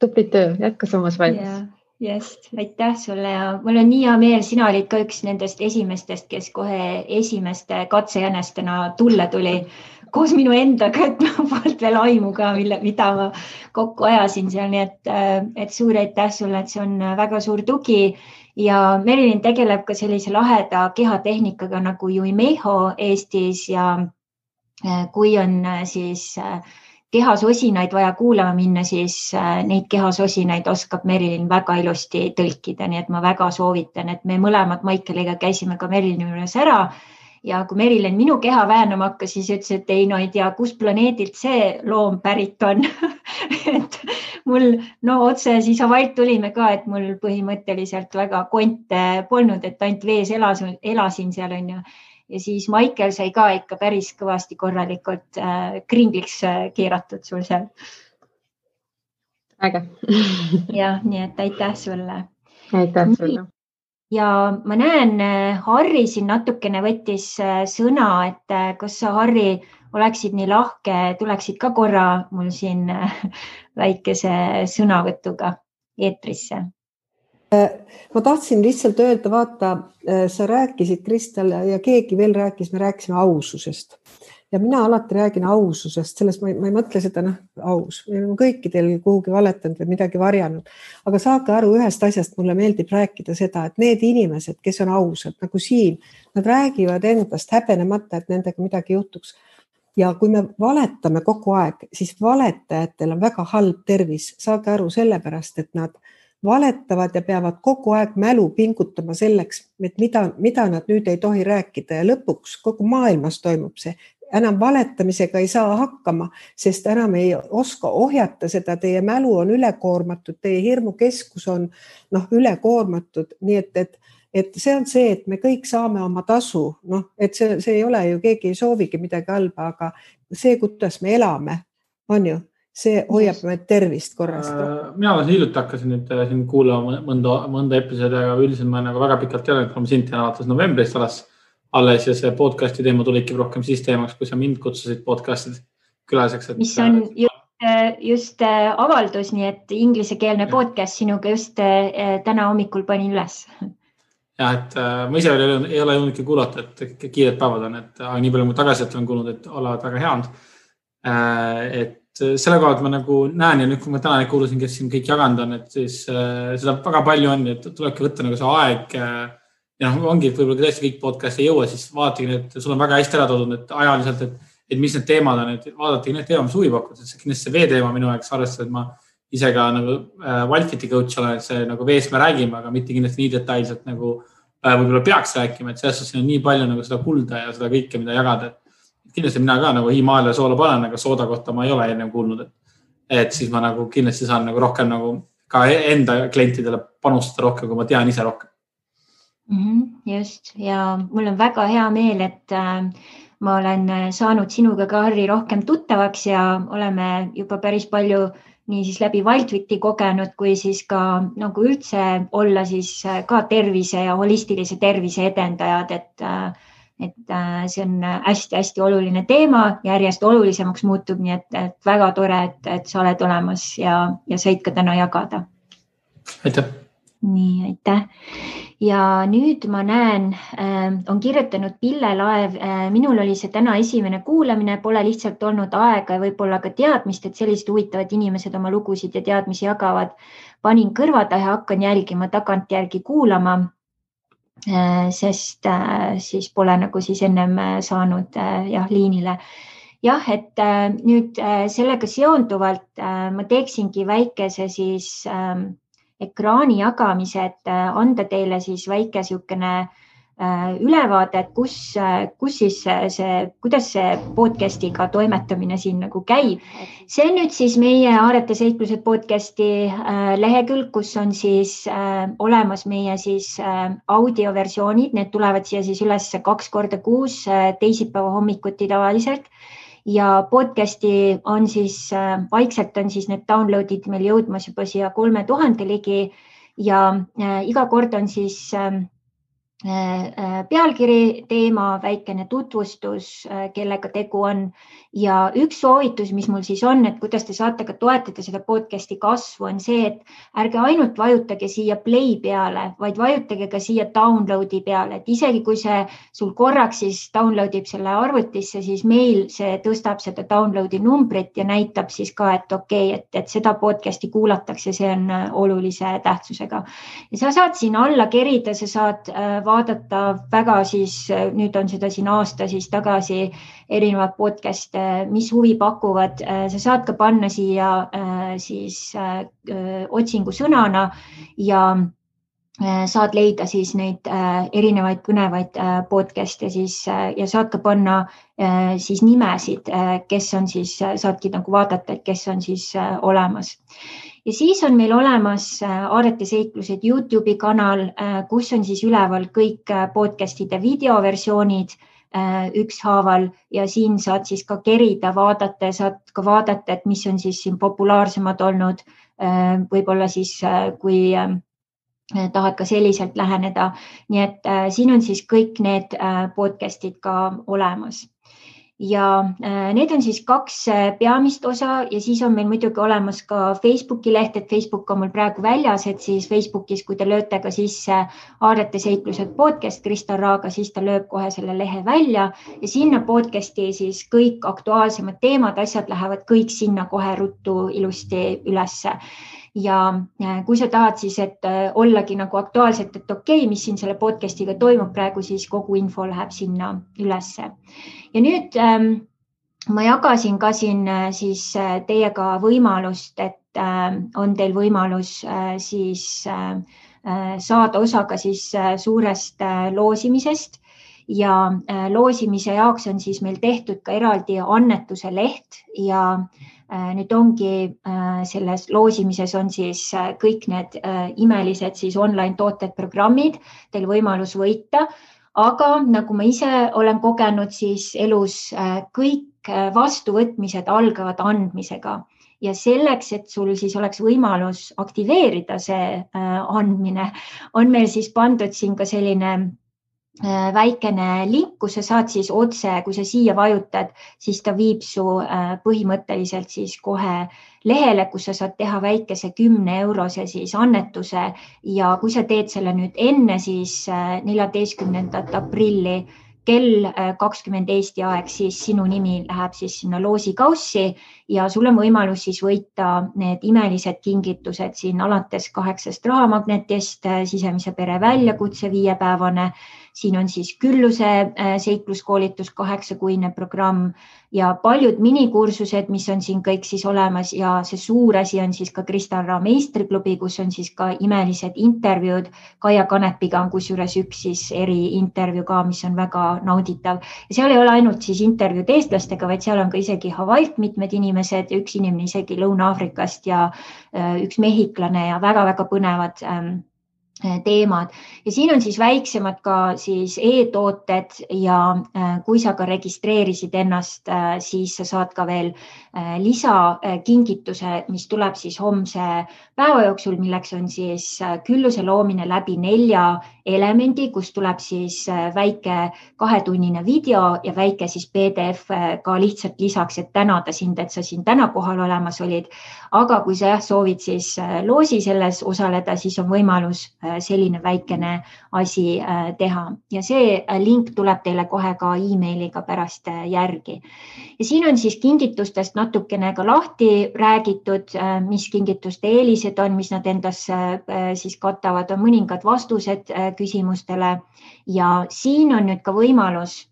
Tubli töö, jätka samas valmis. Just, aitäh sulle ja mul on nii hea meel, sina olid ka üks nendest esimestest, kes kohe esimeste katsejänestena tulle tuli koos minu endaga, et ma polnud veel aimu ka, mida ma kokku ajasin seal, nii et suur aitäh sulle, et see on väga suur tugi ja Merilin tegeleb ka sellise laheda kehatehnikaga nagu Juimeho Eestis ja kui on siis kehasosinaid vaja kuulama minna, siis neid kehasosinaid oskab Merilin väga ilusti tõlkida, nii et ma väga soovitan, et me mõlemad Maikeliga käisime ka Merilini juures ära ja kui Merilin minu keha väänama hakkas, siis ütles, et ei tea, kus planeedilt see loom pärit on. Et mul otse siis Havailt tulime ka, et mul põhimõtteliselt väga konte polnud, et ainult vees elasin seal on ju. Ja siis Maikel sai ka ikka päris kõvasti korralikult kringliks keeratud sul seal. Äge. Ja, nii et aitäh sulle. Aitäh sulle. Ja ma näen, Harri siin natukene võttis sõna, et kas sa, Harri, oleksid nii lahke, tuleksid ka korra mul siin väikese sõnavõtuga eetrisse. Ma tahtsin lihtsalt öelda, vaata, sa rääkisid, Kristel, ja keegi veel rääkis, me rääkisime aususest. Ja mina alati räägin aususest, selles ma ei mõtle seda, aus. Me oleme kõikidel kuhugi valetanud või midagi varjanud. Aga saage aru ühest asjast, mulle meeldib rääkida seda, et need inimesed, kes on ausad, nagu siin, nad räägivad endast häbenemata, et nendega midagi juhtuks. Ja kui me valetame kogu aeg, siis valetajatel on väga halb tervis. Saage aru sellepärast, et nad valetavad ja peavad kogu aeg mälu pingutama selleks, et mida nad nüüd ei tohi rääkida ja lõpuks kogu maailmas toimub see. Enam valetamisega ei saa hakkama, sest enam ei oska ohjata seda, teie mälu on ülekoormatud, teie hirmukeskus on ülekoormatud, nii et see on see, et me kõik saame oma tasu, et see ei ole ju, keegi ei soovigi midagi halba, aga see, kuidas me elame, on ju. See hoiab meid tervist korrast. Mina hiljuti hakkasin nüüd siin kuulama mõnda episoodi, aga üldiselt ma väga pikalt ei ole, kui ma sind tean alates novembrist alles ja see podcasti teema tuligi rohkem siis teemaks, kui sa mind kutsusid podcastid külaliseks. Mis on just avaldus, nii et inglisekeelne podcast sinuga just täna hommikul panin üles. Ja, et ma ise ei ole jõudnudki kuulata, et kiired päevad on, et nii palju mu tagasiselt olen kuulnud, et olevad väga head. Et selle koha, et ma nagu näen ja nüüd, kui ma täna kuulusin, kes siin kõik jaganud on, et siis seda väga palju on, et tulebki võtta nagu see aeg ja ongi, et võib-olla tõesti kõik podcast ei jõua, siis vaadatagi, et sul on väga hästi ära toodud, et ajaliselt, et mis need teemad on, et vaadatagi need teema, mis huvi pakud, et see kindlasti see veeteema minu aeg arvestada, et ma ise ka nagu Wildfiti coach olen, et see nagu veest me räägime, aga mitte kindlasti nii detailselt nagu võib-olla peaks rääkima, et selles suhtes on nii palju nagu seda kulda ja seda kõike, mida jagada. Kindlasti mina ka nagu hiimaale soola panen, aga sooda kohta ma ei ole enne kuulnud, et siis ma nagu kindlasti saan nagu rohkem nagu ka enda klientidele panustada rohkem, kui ma tean ise rohkem. Just, ja mul on väga hea meel, et ma olen saanud sinuga ka, Harri, rohkem tuttavaks ja oleme juba päris palju nii siis läbi Wildwiti kogenud, kui siis ka nagu üldse olla siis ka tervise ja holistilise tervise edendajad, et see on hästi-hästi oluline teema, järjest olulisemaks muutub, nii et väga tore, et sa oled olemas ja said ka täna jagada. Aitäh! Nii, aitäh! Ja nüüd ma näen, on kirjutanud Pille Laev, minul oli see täna esimene kuulamine, pole lihtsalt olnud aega ja võib-olla ka teadmist, et sellised huvitavad inimesed oma lugusid ja teadmisi jagavad. Panin kõrvada ja hakkan jälgima tagantjärgi kuulama, sest siis pole nagu siis ennem saanud liinile. Jah, et nüüd sellega seonduvalt ma teeksingi väikese siis ekraani jagamise, et anda teile siis väike siukene ülevaade, et kuidas see podcastiga toimetamine siin nagu käib. See on nüüd siis meie Aarete seiklused podcasti lehekülg, kus on siis olemas meie siis audioversioonid, need tulevad siia siis üles 2 korda kuus, teisipäeva hommikuti tavaliselt. Ja podcasti on siis, vaikselt on siis need downloadid meil jõudmas juba siia 3000 ligi ja iga kord on siis pealkiri, teema, väikene tutvustus, kellega tegu on ja üks soovitus, mis mul siis on, et kuidas te saate ka toetada seda podcasti kasvu, on see, et ärge ainult vajutage siia play peale, vaid vajutage ka siia downloadi peale, et isegi kui see sul korraks siis downloadib selle arvutisse, siis meil see tõstab seda downloadi numbrit ja näitab siis ka, et okei, et seda podcasti kuulatakse, see on olulise tähtsusega. Ja sa saad siin alla kerida, sa saad vaadata väga siis, nüüd on seda siin aasta siis tagasi erinevad podcast, mis huvi pakuvad. Sa saad ka panna siia siis otsingu sõnana ja saad leida siis neid erinevaid põnevaid podcaste siis ja saad ka panna siis nimesid, kes on siis, saadki nagu vaadata, et kes on siis olemas. Ja siis on meil olemas Aarete seiklused YouTube'i kanal, kus on siis üleval kõik podcastide videoversioonid ükshaaval ja siin saad siis ka kerida, vaadata ja saad ka vaadata, et mis on siis siin populaarsemad olnud, võib-olla siis kui tahad ka selliselt läheneda. Nii et siin on siis kõik need podcastid ka olemas. Ja need on siis 2 peamist osa ja siis on meil muidugi olemas ka Facebooki leht, et Facebook on mul praegu väljas, et siis Facebookis, kui te lööte ka sisse Aarete seiklused podcast Krista Raaga, siis ta lööb kohe selle lehe välja ja sinna podcasti siis kõik aktuaalsemad teemad, asjad lähevad kõik sinna kohe ruttu ilusti ülesse. Ja kui sa tahad siis, et ollagi nagu aktuaalselt, et okei, mis siin selle podcastiga toimub praegu, siis kogu info läheb sinna ülesse. Ja nüüd ma jagasin ka siin siis teiega võimalust, et on teil võimalus siis saada osa ka siis suurest loosimisest ja loosimise jaoks on siis meil tehtud ka eraldi annetuse leht ja nüüd ongi selles loosimises on siis kõik need imelised siis online tooted, programmid, teil võimalus võita, aga nagu ma ise olen kogenud, siis elus kõik vastuvõtmised algavad andmisega ja selleks, et sul siis oleks võimalus aktiveerida see andmine, on meil siis pandud siin ka selline väikene link, kus sa saad siis otse, kui sa siia vajutad, siis ta viib su põhimõtteliselt siis kohe lehele, kus sa saad teha väikese 10-eurose siis annetuse ja kui sa teed selle nüüd enne siis 14. aprilli kell 20 Eesti aeg, siis sinu nimi läheb siis sinna loosikaussi ja sul on võimalus siis võita need imelised kingitused siin alates 8 rahamagnetist, sisemise pere väljakutse 5-päevane siin on siis Külluse seikluskoolitus 8-kuine programm ja paljud minikursused, mis on siin kõik siis olemas ja see suur asi on siis ka Kristarra meistriklubi, kus on siis ka imelised intervjuud. Kaia Kanepiga on kusjuures üks siis eriintervjuu ka, mis on väga nauditav. Ja seal ei ole ainult siis intervjuud eestlastega, vaid seal on ka isegi Hawaiilt mitmed inimesed, üks inimene isegi Lõuna-Aafrikast ja üks mehhiklane ja väga-väga põnevad teemad. Ja siin on siis väiksemad ka siis e-tooted ja kui sa ka registreerisid ennast, siis sa saad ka veel lisakingituse, mis tuleb siis homse päeva jooksul, milleks on siis Külluse loomine läbi 4 elemendi, kus tuleb siis väike 2-tunnine video ja väike siis PDF ka lihtsalt lisaks, et tänada sind, et sa siin täna kohal olemas olid. Aga kui sa soovid siis loosi selles osaleda, siis on võimalus selline väikene asi teha. Ja see link tuleb teile kohe ka e-mailiga pärast järgi. Ja siin on siis kingitustest natukene ka lahti räägitud, mis kingituste eelised on, mis nad endas siis katavad, on mõningad vastused küsimustele ja siin on nüüd ka võimalus,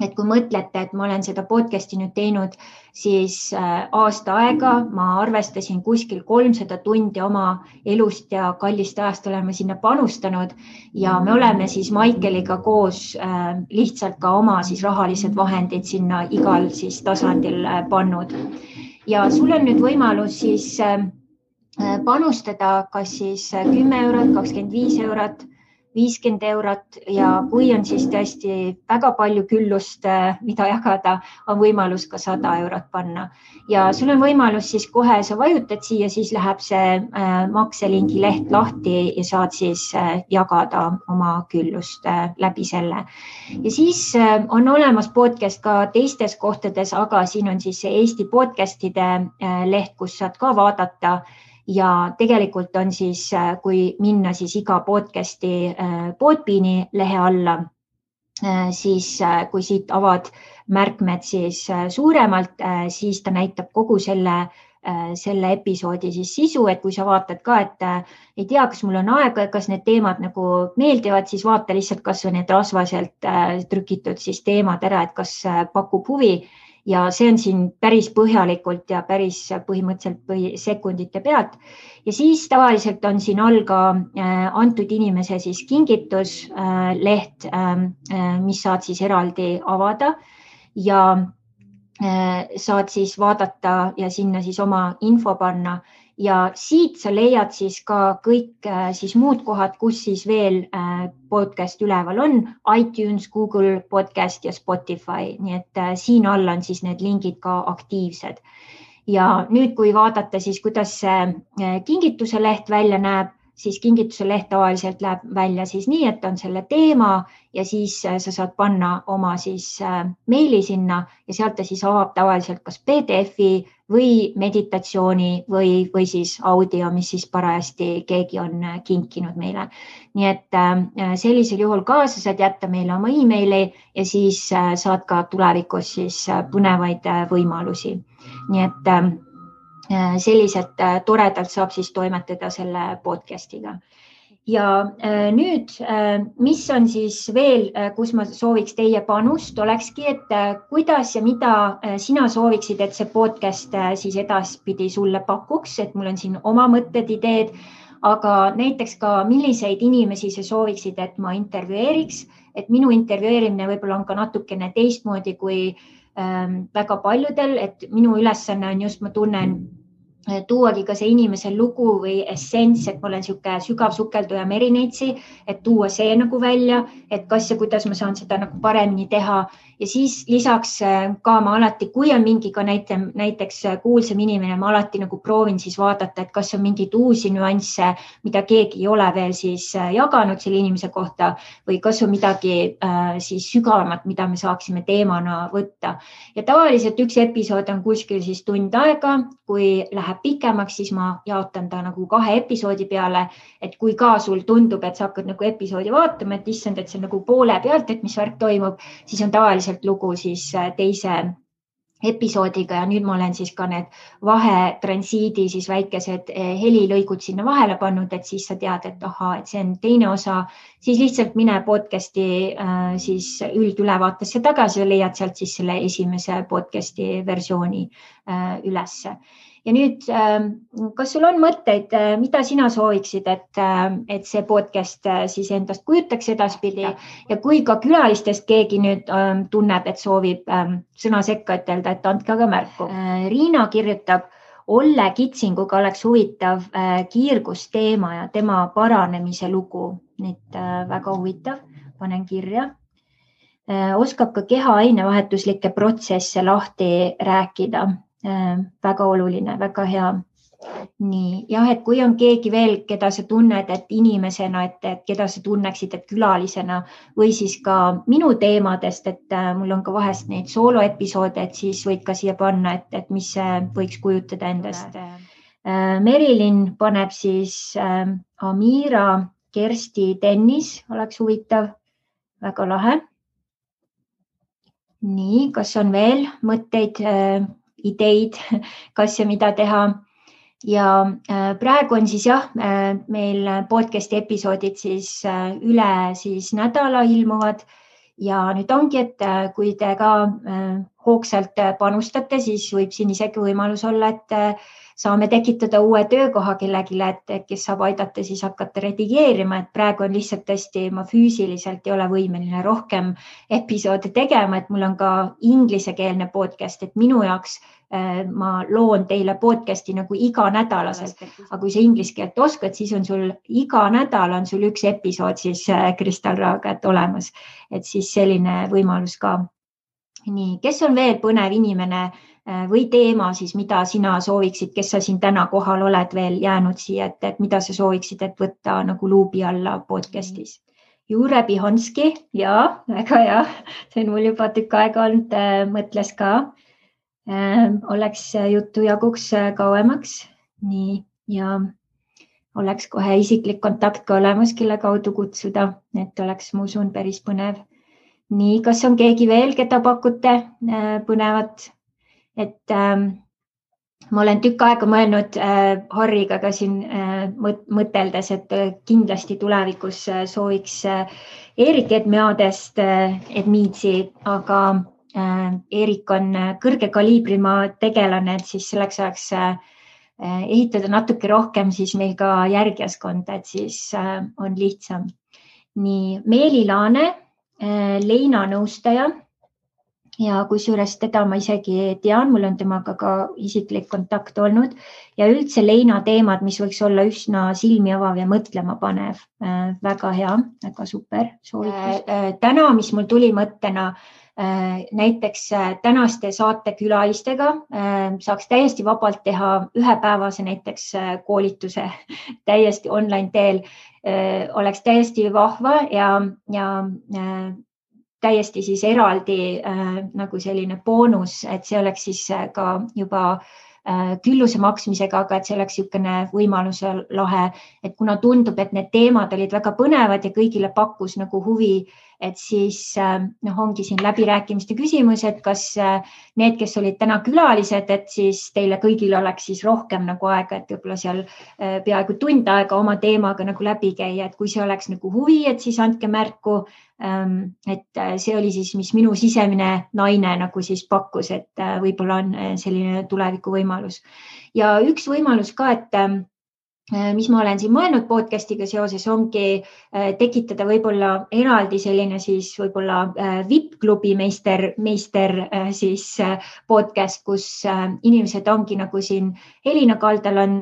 et kui mõtlete, et ma olen seda podcasti nüüd teinud siis aasta aega, ma arvestasin kuskil 300 tundi oma elust ja kallist ajast oleme sinna panustanud ja me oleme siis Maikeliga koos lihtsalt ka oma siis rahalised vahendid sinna igal siis tasandil pannud. Ja sul on nüüd võimalus siis panustada kas siis 10 eurot, 25 eurot, 50 eurot ja kui on siis tõesti väga palju küllust, mida jagada, on võimalus ka 100 eurot panna. Ja sul on võimalus siis kohe, sa vajutad siia, siis läheb see makselingi leht lahti ja saad siis jagada oma küllust läbi selle. Ja siis on olemas podcast ka teistes kohtades, aga siin on siis see Eesti podcastide leht, kus saad ka vaadata. Ja tegelikult on siis, kui minna siis iga podcasti Podbeani lehe alla, siis kui siit avad märkmed siis suuremalt, siis ta näitab kogu selle episoodi siis sisu, et kui sa vaatad ka, et ei tea, kas mul on aega, kas need teemad nagu meeldivad, siis vaata lihtsalt kas või need rasvaselt trükitud siis teemad ära, et kas pakub huvi. Ja see on siin päris põhjalikult ja päris põhimõtteliselt sekundite pealt. Ja siis tavaliselt on siin all ka antud inimese siis kingitus leht, mis saad siis eraldi avada ja saad siis vaadata ja sinna siis oma info panna. Ja siit sa leiad siis ka kõik siis muud kohad, kus siis veel podcast üleval on, iTunes, Google Podcast ja Spotify, nii et siin all on siis need lingid ka aktiivsed. Ja nüüd, kui vaadata siis, kuidas see kingituse leht välja näeb, siis kingituse leht tavaliselt läheb välja siis nii, et on selle teema ja siis sa saad panna oma siis meili sinna ja sealt ta siis avab tavaliselt kas PDF-i või meditatsiooni või siis audio, mis siis parajasti keegi on kinkinud meile. Nii et sellisel juhul ka sa saad jätta meile oma e-maili ja siis saad ka tulevikus siis põnevaid võimalusi. Nii et selliselt toredalt saab siis toimetada selle podcastiga. Ja nüüd, mis on siis veel, kus ma sooviks teie panust, olekski, et kuidas ja mida sina sooviksid, et see podcast siis edaspidi sulle pakuks, et mul on siin oma mõtted, ideed, aga näiteks ka milliseid inimesi sa sooviksid, et ma intervjueeriks, et minu intervjueerimine võib-olla on ka natukene teistmoodi kui väga paljudel, et minu ülesanne on just, ma tunnen, tuuagi ka see inimese lugu või essents, et ma olen sihuke sügav sukelduja merineitsi, et tuua see nagu välja, et kas ja kuidas ma saan seda nagu paremini teha. Ja siis lisaks ka ma alati, kui on mingi ka näiteks kuulsam inimene, ma alati nagu proovin siis vaadata, et kas on mingid uusi nüansse, mida keegi ei ole veel siis jaganud selle inimese kohta või kas on midagi siis sügavamat, mida me saaksime teemana võtta. Ja tavaliselt üks episood on kuskil siis tund aega, kui läheb pikemaks, siis ma jaotan ta nagu 2 episoodi peale, et kui ka sul tundub, et sa hakkad nagu episoodi vaatama, et issand, et see on nagu poole pealt, et mis värk toimub, siis on tavaliselt lugu siis teise episoodiga ja nüüd ma olen siis ka need vahetransiidi siis väikesed helilõigud sinna vahele pannud, et siis sa tead, et ahaa, et see on teine osa, siis lihtsalt mine podcasti siis üldülevaatesse tagasi ja leiad sealt siis selle esimese podcasti versiooni ülesse. Ja nüüd, kas sul on mõtteid, mida sina sooviksid, et see podcast siis endast kujutaks edaspidi ja kui ka külalistest keegi nüüd tunneb, et soovib sõna sekka ütelda, et andke aga märku. Riina kirjutab, Olle Kitsinguga oleks huvitav kiirgusteema ja tema paranemise lugu. Nüüd väga huvitav, panen kirja. Oskab ka keha ainevahetuslikke protsesse lahti rääkida. Väga oluline, väga hea. Nii, jah, et kui on keegi veel, keda sa tunned, et inimesena, et keda sa tunneksid, et külalisena või siis ka minu teemadest, et mul on ka vahest neid sooloepisoode, et siis võid ka siia panna, et mis see võiks kujutada endast. Merilin paneb siis Amira, Kersti, Dennis, oleks huvitav, väga lahe. Nii, kas on veel mõtteid, ideid, kas ja mida teha. Ja praegu on siis jah, meil podcasti episoodid siis üle siis nädala ilmuvad ja nüüd ongi, et kui te ka hoogsalt panustate, siis võib siin isegi võimalus olla, et saame tekitada uue töökoha kellegile, et kes saab aidata siis hakata redigeerima, et praegu on lihtsalt tõesti, ma füüsiliselt ei ole võimeline rohkem episoode tegema, et mul on ka inglisekeelne podcast, et minu jaoks ma loon teile podcasti nagu iga nädalaselt, aga kui sa inglise keelt oskad, siis on sul iga nädal on sul üks episood siis Kristal Raaga olemas, et siis selline võimalus ka. Nii, kes on veel põnev inimene või teema siis, mida sina sooviksid, kes sa siin täna kohal oled veel jäänud siia, et mida sa sooviksid, et võtta nagu luubi alla podcastis? Jure Bihonski, jaa, väga hea, see on mul juba tükk aega olnud, mõtles ka. Oleks juttu jaguks kauemaks, nii, ja oleks kohe isiklik kontakt ka olemas, kelle kaudu kutsuda, et oleks, ma usun, päris põnev. Nii, kas on keegi veel, keda pakute põnevat? Et ma olen tükk aega mõelnud Harriga ka siin mõteldes, et kindlasti tulevikus sooviks Eerik Edmeadest Edmiitsi, aga Eerik on kõrge kaliibrima tegelane, et siis selleks saaks ehitada natuke rohkem siis meil ka järgjaskonda, et siis on lihtsam. Nii, Meeli Laane, Leina nõustaja ja kusjuures teda ma isegi tean, mul on temaga ka isiklik kontakt olnud ja üldse Leina teemad, mis võiks olla üsna silmi avav ja mõtlema panev. Väga hea, väga super soovitus. Täna, mis mul tuli mõttena, näiteks tänaste saatekülalistega saaks täiesti vabalt teha ühepäevase näiteks koolituse täiesti online teel, oleks täiesti vahva ja täiesti siis eraldi nagu selline boonus, et see oleks siis ka juba külluse maksmisega, aga et see oleks niisugune võimaluse lahe, et kuna tundub, et need teemad olid väga põnevad ja kõigile pakkus nagu huvi, et siis ongi siin läbirääkimiste küsimus, et kas need, kes olid täna külalised, et siis teile kõigil oleks siis rohkem nagu aega, et võib-olla seal peaaegu tund aega oma teemaga nagu läbi käia, et kui see oleks nagu huvi, et siis andke märku, et see oli siis, mis minu sisemine naine nagu siis pakkus, et võib-olla on selline tuleviku võimalus. Ja üks võimalus ka, et mis ma olen siin mõelnud podcastiga seoses, ongi tekitada võib-olla eraldi selline siis võib-olla VIP-klubi meister siis podcast, kus inimesed ongi nagu siin Elina Kaldal on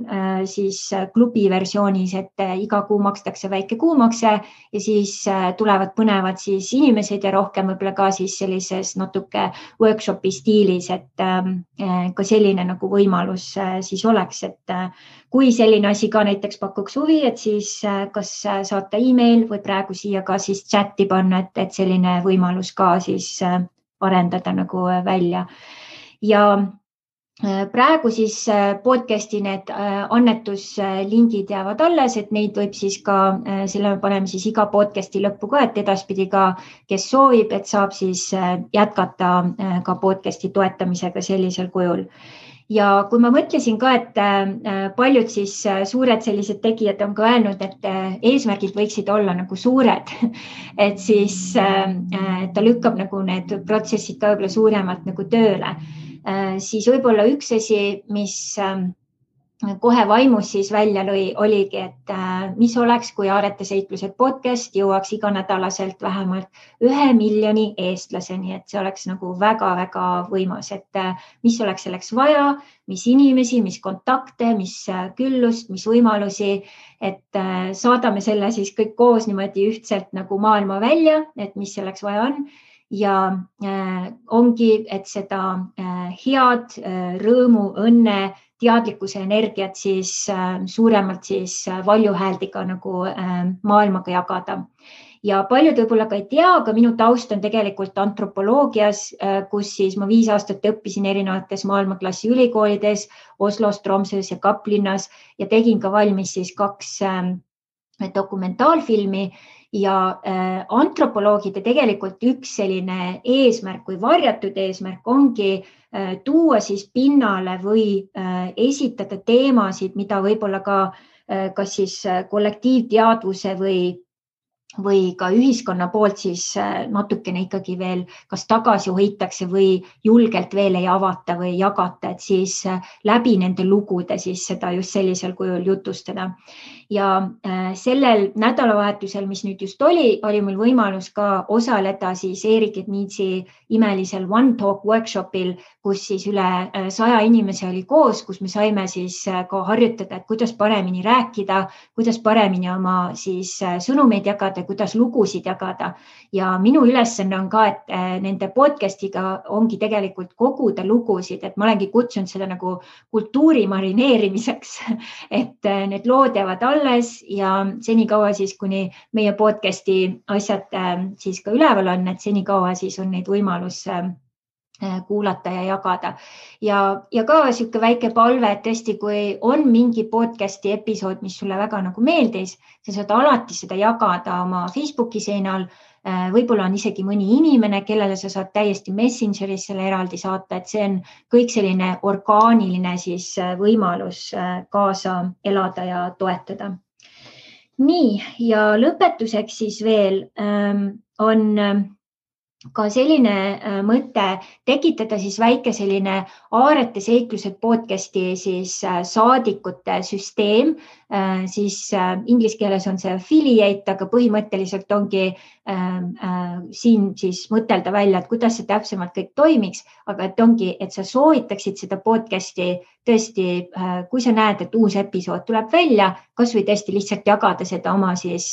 siis klubi versioonis, et iga kuu makstakse väike kuumakse ja siis tulevad põnevad siis inimesed ja rohkem võib-olla ka siis sellises natuke workshopi stiilis, et ka selline nagu võimalus siis oleks, et kui selline asi ka näiteks pakuks huvi, et siis kas saata email või praegu siia ka siis chati panna, et selline võimalus ka siis arendada nagu välja. Ja praegu siis podcasti need annetuslingid jäävad alles, et neid võib siis ka, selle me paneme siis iga podcasti lõppu ka, et edaspidi ka, kes soovib, et saab siis jätkata ka podcasti toetamisega sellisel kujul. Ja kui ma mõtlesin ka, et paljud siis suured sellised tegijad on ka öelnud, et eesmärgid võiksid olla nagu suured, et siis ta lükkab nagu need protsessid ka võib-olla suuremalt nagu tööle. Siis võib-olla üks asi, mis kohe vaimus siis välja lõi, oligi, et mis oleks, kui Aarete seiklused podcast jõuaks iganädalaselt vähemalt 1 miljoni eestlaseni, et see oleks nagu väga-väga võimas, et mis oleks selleks vaja, mis inimesi, mis kontakte, mis küllust, mis võimalusi, et saadame selle siis kõik koos niimoodi ühtselt nagu maailma välja, et mis selleks vaja on. Ja ongi, et seda head rõõmu, õnne, teadlikkuse energiat siis suuremalt siis valjuhääldiga nagu maailmaga jagada. Ja paljud võib-olla ka ei tea, aga minu taust on tegelikult antropoloogias, kus siis ma 5 aastat õppisin erinevates maailmaklassi ülikoolides, Oslos, Tromsøs ja Kaplinnas ja tegin ka valmis siis 2 dokumentaalfilmi. Ja antropoloogide tegelikult üks selline eesmärk või varjatud eesmärk ongi tuua siis pinnale või esitada teemasid, mida võib-olla ka kas siis kollektiivteadvuse või ka ühiskonna poolt siis natukene ikkagi veel kas tagasi hoitakse või julgelt veel ei avata või jagata, et siis läbi nende lugude siis seda just sellisel kujul jutustada. Ja sellel nädalavahetusel, mis nüüd just oli mul võimalus ka osaleda siis Erik Ednitsi imelisel One Talk workshopil, kus siis üle 100 inimese oli koos, kus me saime siis ka harjutada, et kuidas paremini rääkida, kuidas paremini oma siis sõnumeid jagada, kuidas lugusid jagada. Ja minu ülesanne on ka, et nende podcastiga ongi tegelikult koguda lugusid, et ma olengi kutsunud seda nagu kultuuri marineerimiseks, et need lood jäävad alles ja senikaua siis, kuni meie podcasti asjad siis ka üleval on, et senikaua siis on neid võimalus kuulata ja jagada. Ja ka siuke väike palve, et tõesti, kui on mingi podcasti episood, mis sulle väga nagu meeldis, sa saad alati seda jagada oma Facebooki seinal. Võib-olla on isegi mõni inimene, kellele sa saad täiesti Messengeris selle eraldi saata, et see on kõik selline orgaaniline siis võimalus kaasa elada ja toetada. Nii, ja lõpetuseks siis veel on ka selline mõte tekitada siis väike selline Aarete seiklused podcasti siis saadikute süsteem, siis inglise keeles on see affiliate, aga põhimõtteliselt ongi siin siis mõtelda välja, et kuidas see täpsemalt kõik toimiks, aga et ongi, et sa soovitaksid seda podcasti tõesti, kui sa näed, et uus episood tuleb välja, kas või tõesti lihtsalt jagada seda oma siis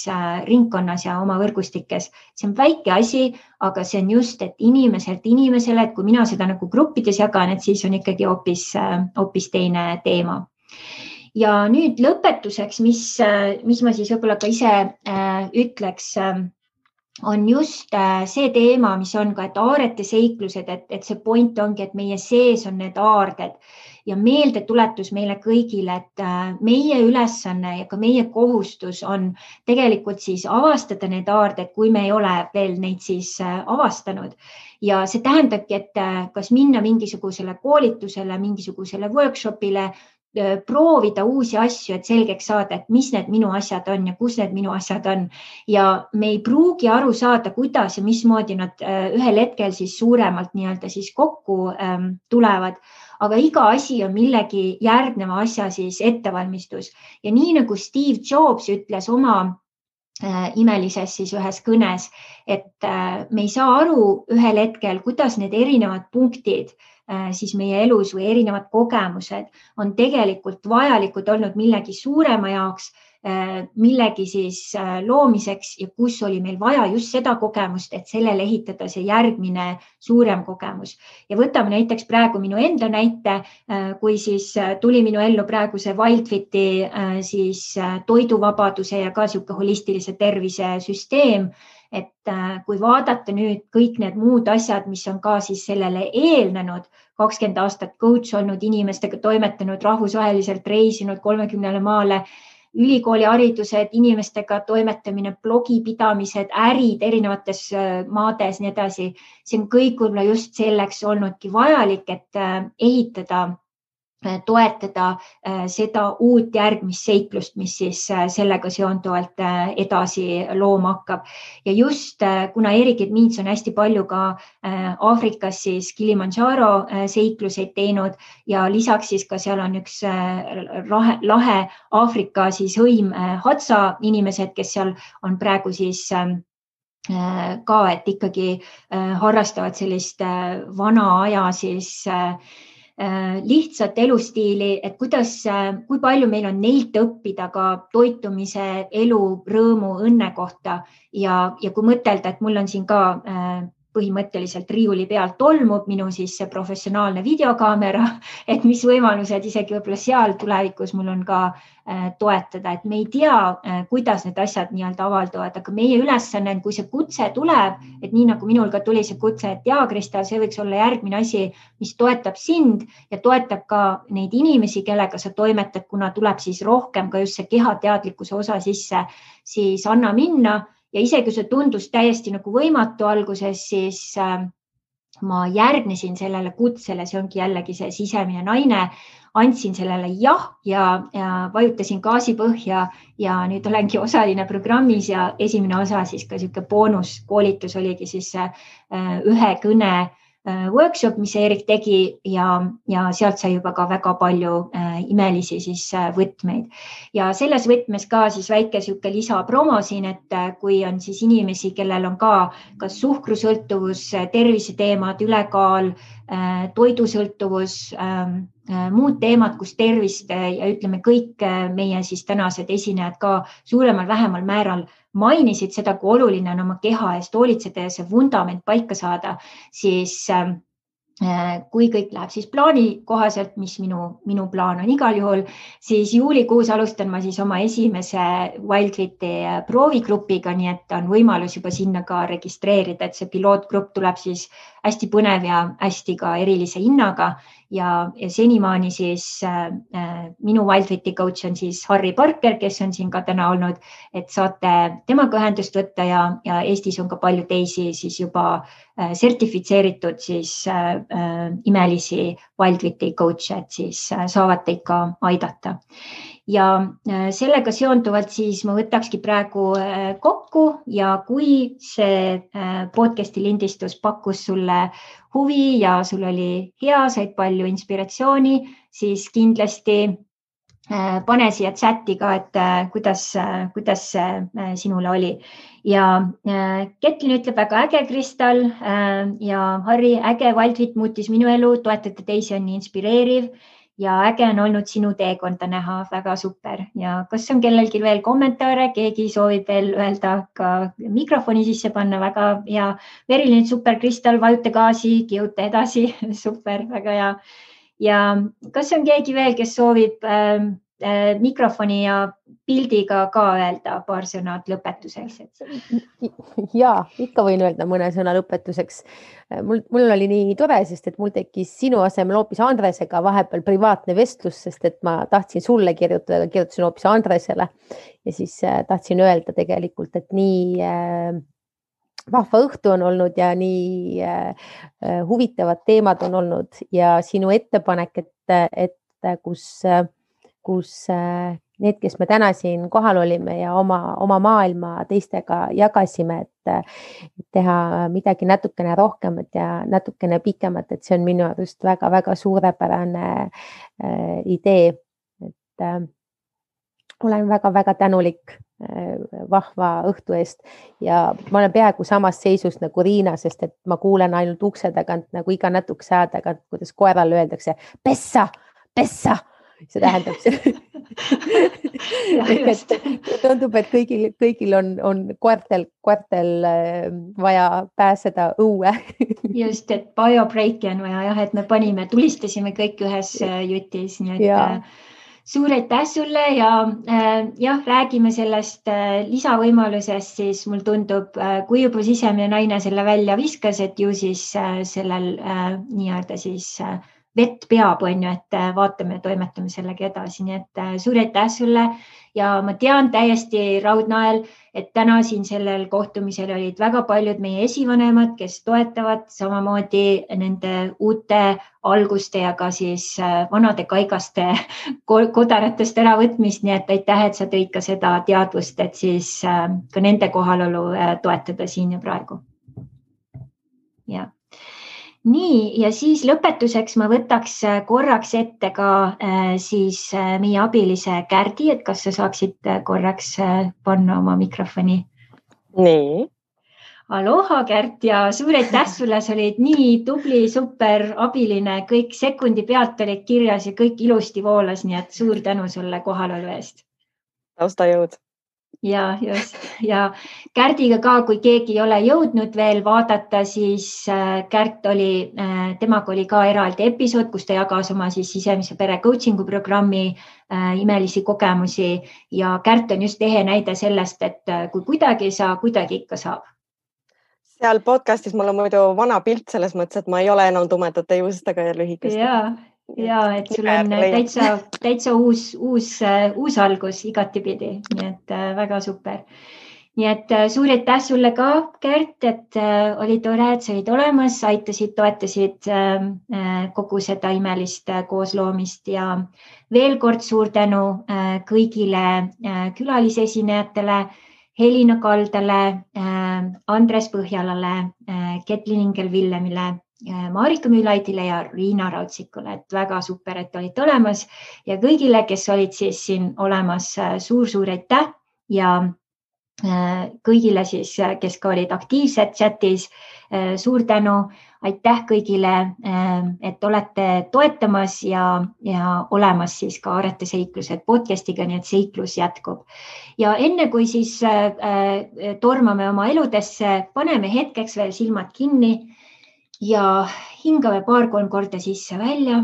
ringkonnas ja oma võrgustikes. See on väike asi, aga see on just, et inimeselt inimesele, et kui mina seda nagu gruppides jagan, et siis on ikkagi hoopis teine teema. Ja nüüd lõpetuseks, mis ma siis võib-olla ka ise ütleks, on just see teema, mis on ka, et Aarete seiklused, et see point ongi, et meie sees on need aarded ja meeldetuletus meile kõigile, et meie ülesanne ja ka meie kohustus on tegelikult siis avastada need aarded, kui me ei ole veel neid siis avastanud. Ja see tähendabki, et kas minna mingisugusele koolitusele, mingisugusele workshopile, proovida uusi asju, et selgeks saada, et mis need minu asjad on ja kus need minu asjad on. Ja me ei pruugi aru saada, kuidas ja mismoodi nad ühel hetkel siis suuremalt nii-öelda siis kokku tulevad. Aga iga asi on millegi järgneva asja siis ettevalmistus. Ja nii nagu Steve Jobs ütles oma imelises siis ühes kõnes, et me ei saa aru ühel hetkel, kuidas need erinevad punktid siis meie elus või erinevad kogemused on tegelikult vajalikud olnud millegi suurema jaoks, millegi siis loomiseks ja kus oli meil vaja just seda kogemust, et sellele ehitada see järgmine suurem kogemus. Ja võtame näiteks praegu minu enda näite, kui siis tuli minu ellu praegu see Wildfiti siis toiduvabaduse ja ka siuke holistilise tervise süsteem, et kui vaadata nüüd kõik need muud asjad, mis on ka siis sellele eelnenud, 20 aastat coach olnud, inimestega toimetanud, rahvusvaheliselt reisinud 30 maale, ülikooliharidused, inimestega toimetamine, blogipidamised, ärid erinevates maades, nii edasi. See on kõik võib-olla just selleks olnudki vajalik, et ehitada, toetada seda uut järgmist seiklust, mis siis sellega seonduvalt edasi looma hakkab. Ja just kuna Erik Edmits on hästi palju ka Aafrikas siis Kilimanjaro seikluseid teinud ja lisaks siis ka seal on üks lahe Aafrika siis hõim Hadza inimesed, kes seal on praegu siis ka, et ikkagi harrastavad sellist vana aja siis lihtsat elustiili, et kui palju meil on neilt õppida ka toitumise, elu, rõõmu, õnne kohta ja kui mõtelda, et mul on siin ka põhimõtteliselt riiuli peal tolmub minu siis see professionaalne videokaamera, et mis võimalused isegi võib-olla seal tulevikus mul on ka toetada, et me ei tea, kuidas need asjad nii-öelda avalduvad, aga meie ülesanne, kui see kutse tuleb, et nii nagu minul ka tuli see kutse, et jaa, Kristal, see võiks olla järgmine asi, mis toetab sind ja toetab ka neid inimesi, kellega sa toimetad, kuna tuleb siis rohkem ka just see kehateadlikkuse osa sisse, siis anna minna. Ja isegi see tundus täiesti nagu võimatu alguses, siis ma järgnesin sellele kutsele, see ongi jällegi see sisemine naine, andsin sellele jah ja vajutasin gaasipõhja ja nüüd olengi osaline programmis ja esimene osa siis ka selline boonuskoolitus oligi siis ühe kõne workshop, mis Erik tegi ja sealt sai juba ka väga palju imelisi siis võtmeid. Ja selles võtmes ka siis väike sihuke lisapromo siin, et kui on siis inimesi, kellel on ka kas suhkrusõltuvus, terviseteemad, ülekaal, toidusõltuvus, muud teemad, kus tervist ja ütleme kõik meie siis tänased esinejad ka suuremal vähemal määral mainisid seda, kui oluline on oma keha eest hoolitseda ja see vundament paika saada, siis kui kõik läheb siis plaani kohaselt, mis minu plaan on igal juhul, siis juulikuus alustan ma siis oma esimese WildFiti proovigrupiga, nii et on võimalus juba sinna ka registreerida, et see pilootgrupp tuleb siis hästi põnev ja hästi ka erilise hinnaga ja senimaani siis minu WildFiti coach on siis Harry Parker, kes on siin ka täna olnud, et saate temaga ühendust võtta ja Eestis on ka palju teisi siis juba sertifitseeritud siis imelisi WildFiti coach'e, et siis saavad teid ka aidata. Ja sellega seonduvalt siis ma võtakski praegu kokku ja kui see podcasti lindistus pakkus sulle huvi ja sul oli hea, said palju inspiratsiooni, siis kindlasti pane siia chati ka, et kuidas see sinule oli. Ja Ketlin ütleb väga äge, Kristal ja Harri, äge WildFit muutis minu elu, toetada teisi on nii inspireeriv ja äge on olnud sinu teekonda näha, väga super. Ja kas on kellelgi veel kommentaare, keegi soovib veel öelda ka mikrofoni sisse panna, väga hea. Verilin, super, Kristal, vajuta gaasi, kihuta edasi, super, väga hea. Ja kas on keegi veel, kes soovib mikrofoni ja pildiga ka öelda paar sõnad lõpetuseks? Ja, ikka võin öelda mõne sõna lõpetuseks. Mul oli nii tore, sest et mul tekkis sinu asemel hoopis Andresega vahepeal privaatne vestlus, sest et ma tahtsin sulle kirjutada, aga kirjutasin hoopis Andresele ja siis tahtsin öelda tegelikult, et nii vahva õhtu on olnud ja nii huvitavad teemad on olnud ja sinu ettepanek, et kus need, kes me täna siin kohal olime ja oma maailma teistega jagasime, et teha midagi natukene rohkemat ja natukene pikemat, et see on minu arust väga-väga suurepärane idee. Et olen väga-väga tänulik vahva õhtu eest ja ma olen peaaegu samas seisus nagu Riina, sest et ma kuulen ainult ukse tagant nagu iga natukese aja tagant, kuidas koerale öeldakse pessa. See tähendab see. Tundub, et kõigil on koertel vaja pääseda õue. Just, et biobreaki on vaja, et me tulistasime kõik ühes jutis, nii et suur aitäh sulle ja jah, räägime sellest lisavõimalusest, siis mul tundub, kui juba sisemine naine selle välja viskas, et ju siis sellel nii-öelda siis vett peab, on ju, et vaatame ja toimetame sellega edasi. Nii et suur aitäh sulle ja ma tean täiesti raudnael, et täna siin sellel kohtumisel olid väga paljud meie esivanemad, kes toetavad samamoodi nende uute alguste ja ka siis vanade kaigaste kodaratest äravõtmist. Nii et aitäh, et sa tõid ka seda teadvust, et siis ka nende kohalolu toetada siin ja praegu. Ja. Nii, ja siis lõpetuseks ma võtaks korraks ette ka siis meie abilise Kärdi, et kas sa saaksid korraks panna oma mikrofoni? Nii. Aloha Kärt ja suur aitäh sulle, sa olid nii tubli, super abiline, kõik sekundi pealt olid kirjas ja kõik ilusti voolas, nii et suur tänu sulle kohalolu eest. Taustajõud. Ja just. Ja Kärdiga ka, kui keegi ei ole jõudnud veel vaadata, siis Kärt oli, temaga oli ka eraldi episood, kus ta jagas oma siis sisemise pere coachingu programmi imelisi kogemusi ja Kärt on just ehe näide sellest, et kui kuidagi ei saa, kuidagi ikka saab. Seal podcastis mul on muidu vana pilt selles mõttes, et ma ei ole enam tumedate juustega ja lühikestega. Ja, et sul on täitsa uus algus igatipidi, nii et väga super. Nii et suur aitäh sulle ka, Kärt, et oli tore, et sa olid olemas, aitasid, toetasid kogu seda imelist koosloomist ja veel kord suur tänu kõigile külalisesinejatele, Helina Kaldale, Andres Põhjalale, Ketlin Ingel-Villemile, Marika Müülaidile ja Riina Raudsikule, et väga super, et olid olemas ja kõigile, kes olid siis siin olemas, suur aitäh ja kõigile siis, kes ka olid aktiivsed chatis, suur tänu, aitäh kõigile, et olete toetamas ja olemas siis ka Arete seiklused podcastiga, nii et seiklus jätkub. Ja enne kui siis tormame oma eludesse, paneme hetkeks veel silmad kinni ja hingame 2-3 korda sisse-välja.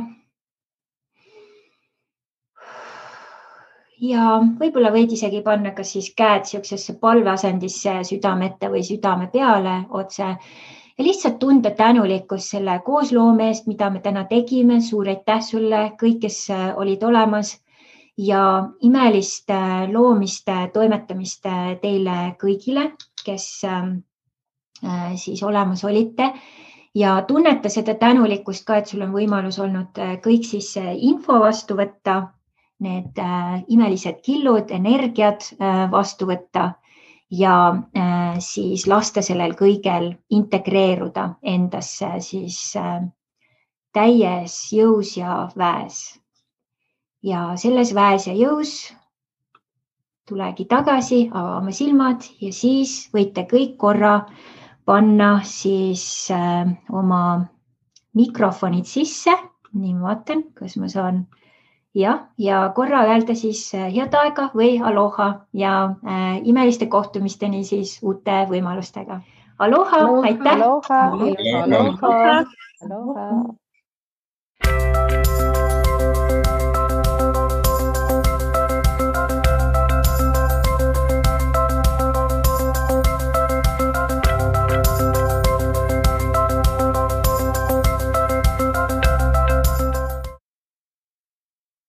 Ja võib-olla võid isegi panna kas siis käed siuksesse palveasendisse südame ette või südame peale otse ja lihtsalt tunda tänulikkust selle koosloome eest, mida me täna tegime. Suur aitäh sulle, kõik, kes olid olemas ja imelist loomist, toimetamist teile kõigile, kes siis olemas olite. Ja tunneta seda tänulikkust ka, et sul on võimalus olnud kõik siis info vastu võtta, need imelised killud, energiat vastu võtta ja siis lasta sellel kõigel integreeruda endasse siis täies jõus ja väes. Ja selles väes ja jõus tulegi tagasi, avame silmad ja siis võite kõik korra panna siis oma mikrofonid sisse. Nii ma vaatan, kas ma saan ja korra öelda siis head aega või aloha ja imeliste kohtumisteni siis uute võimalustega. Aloha, aitäh! Aloha!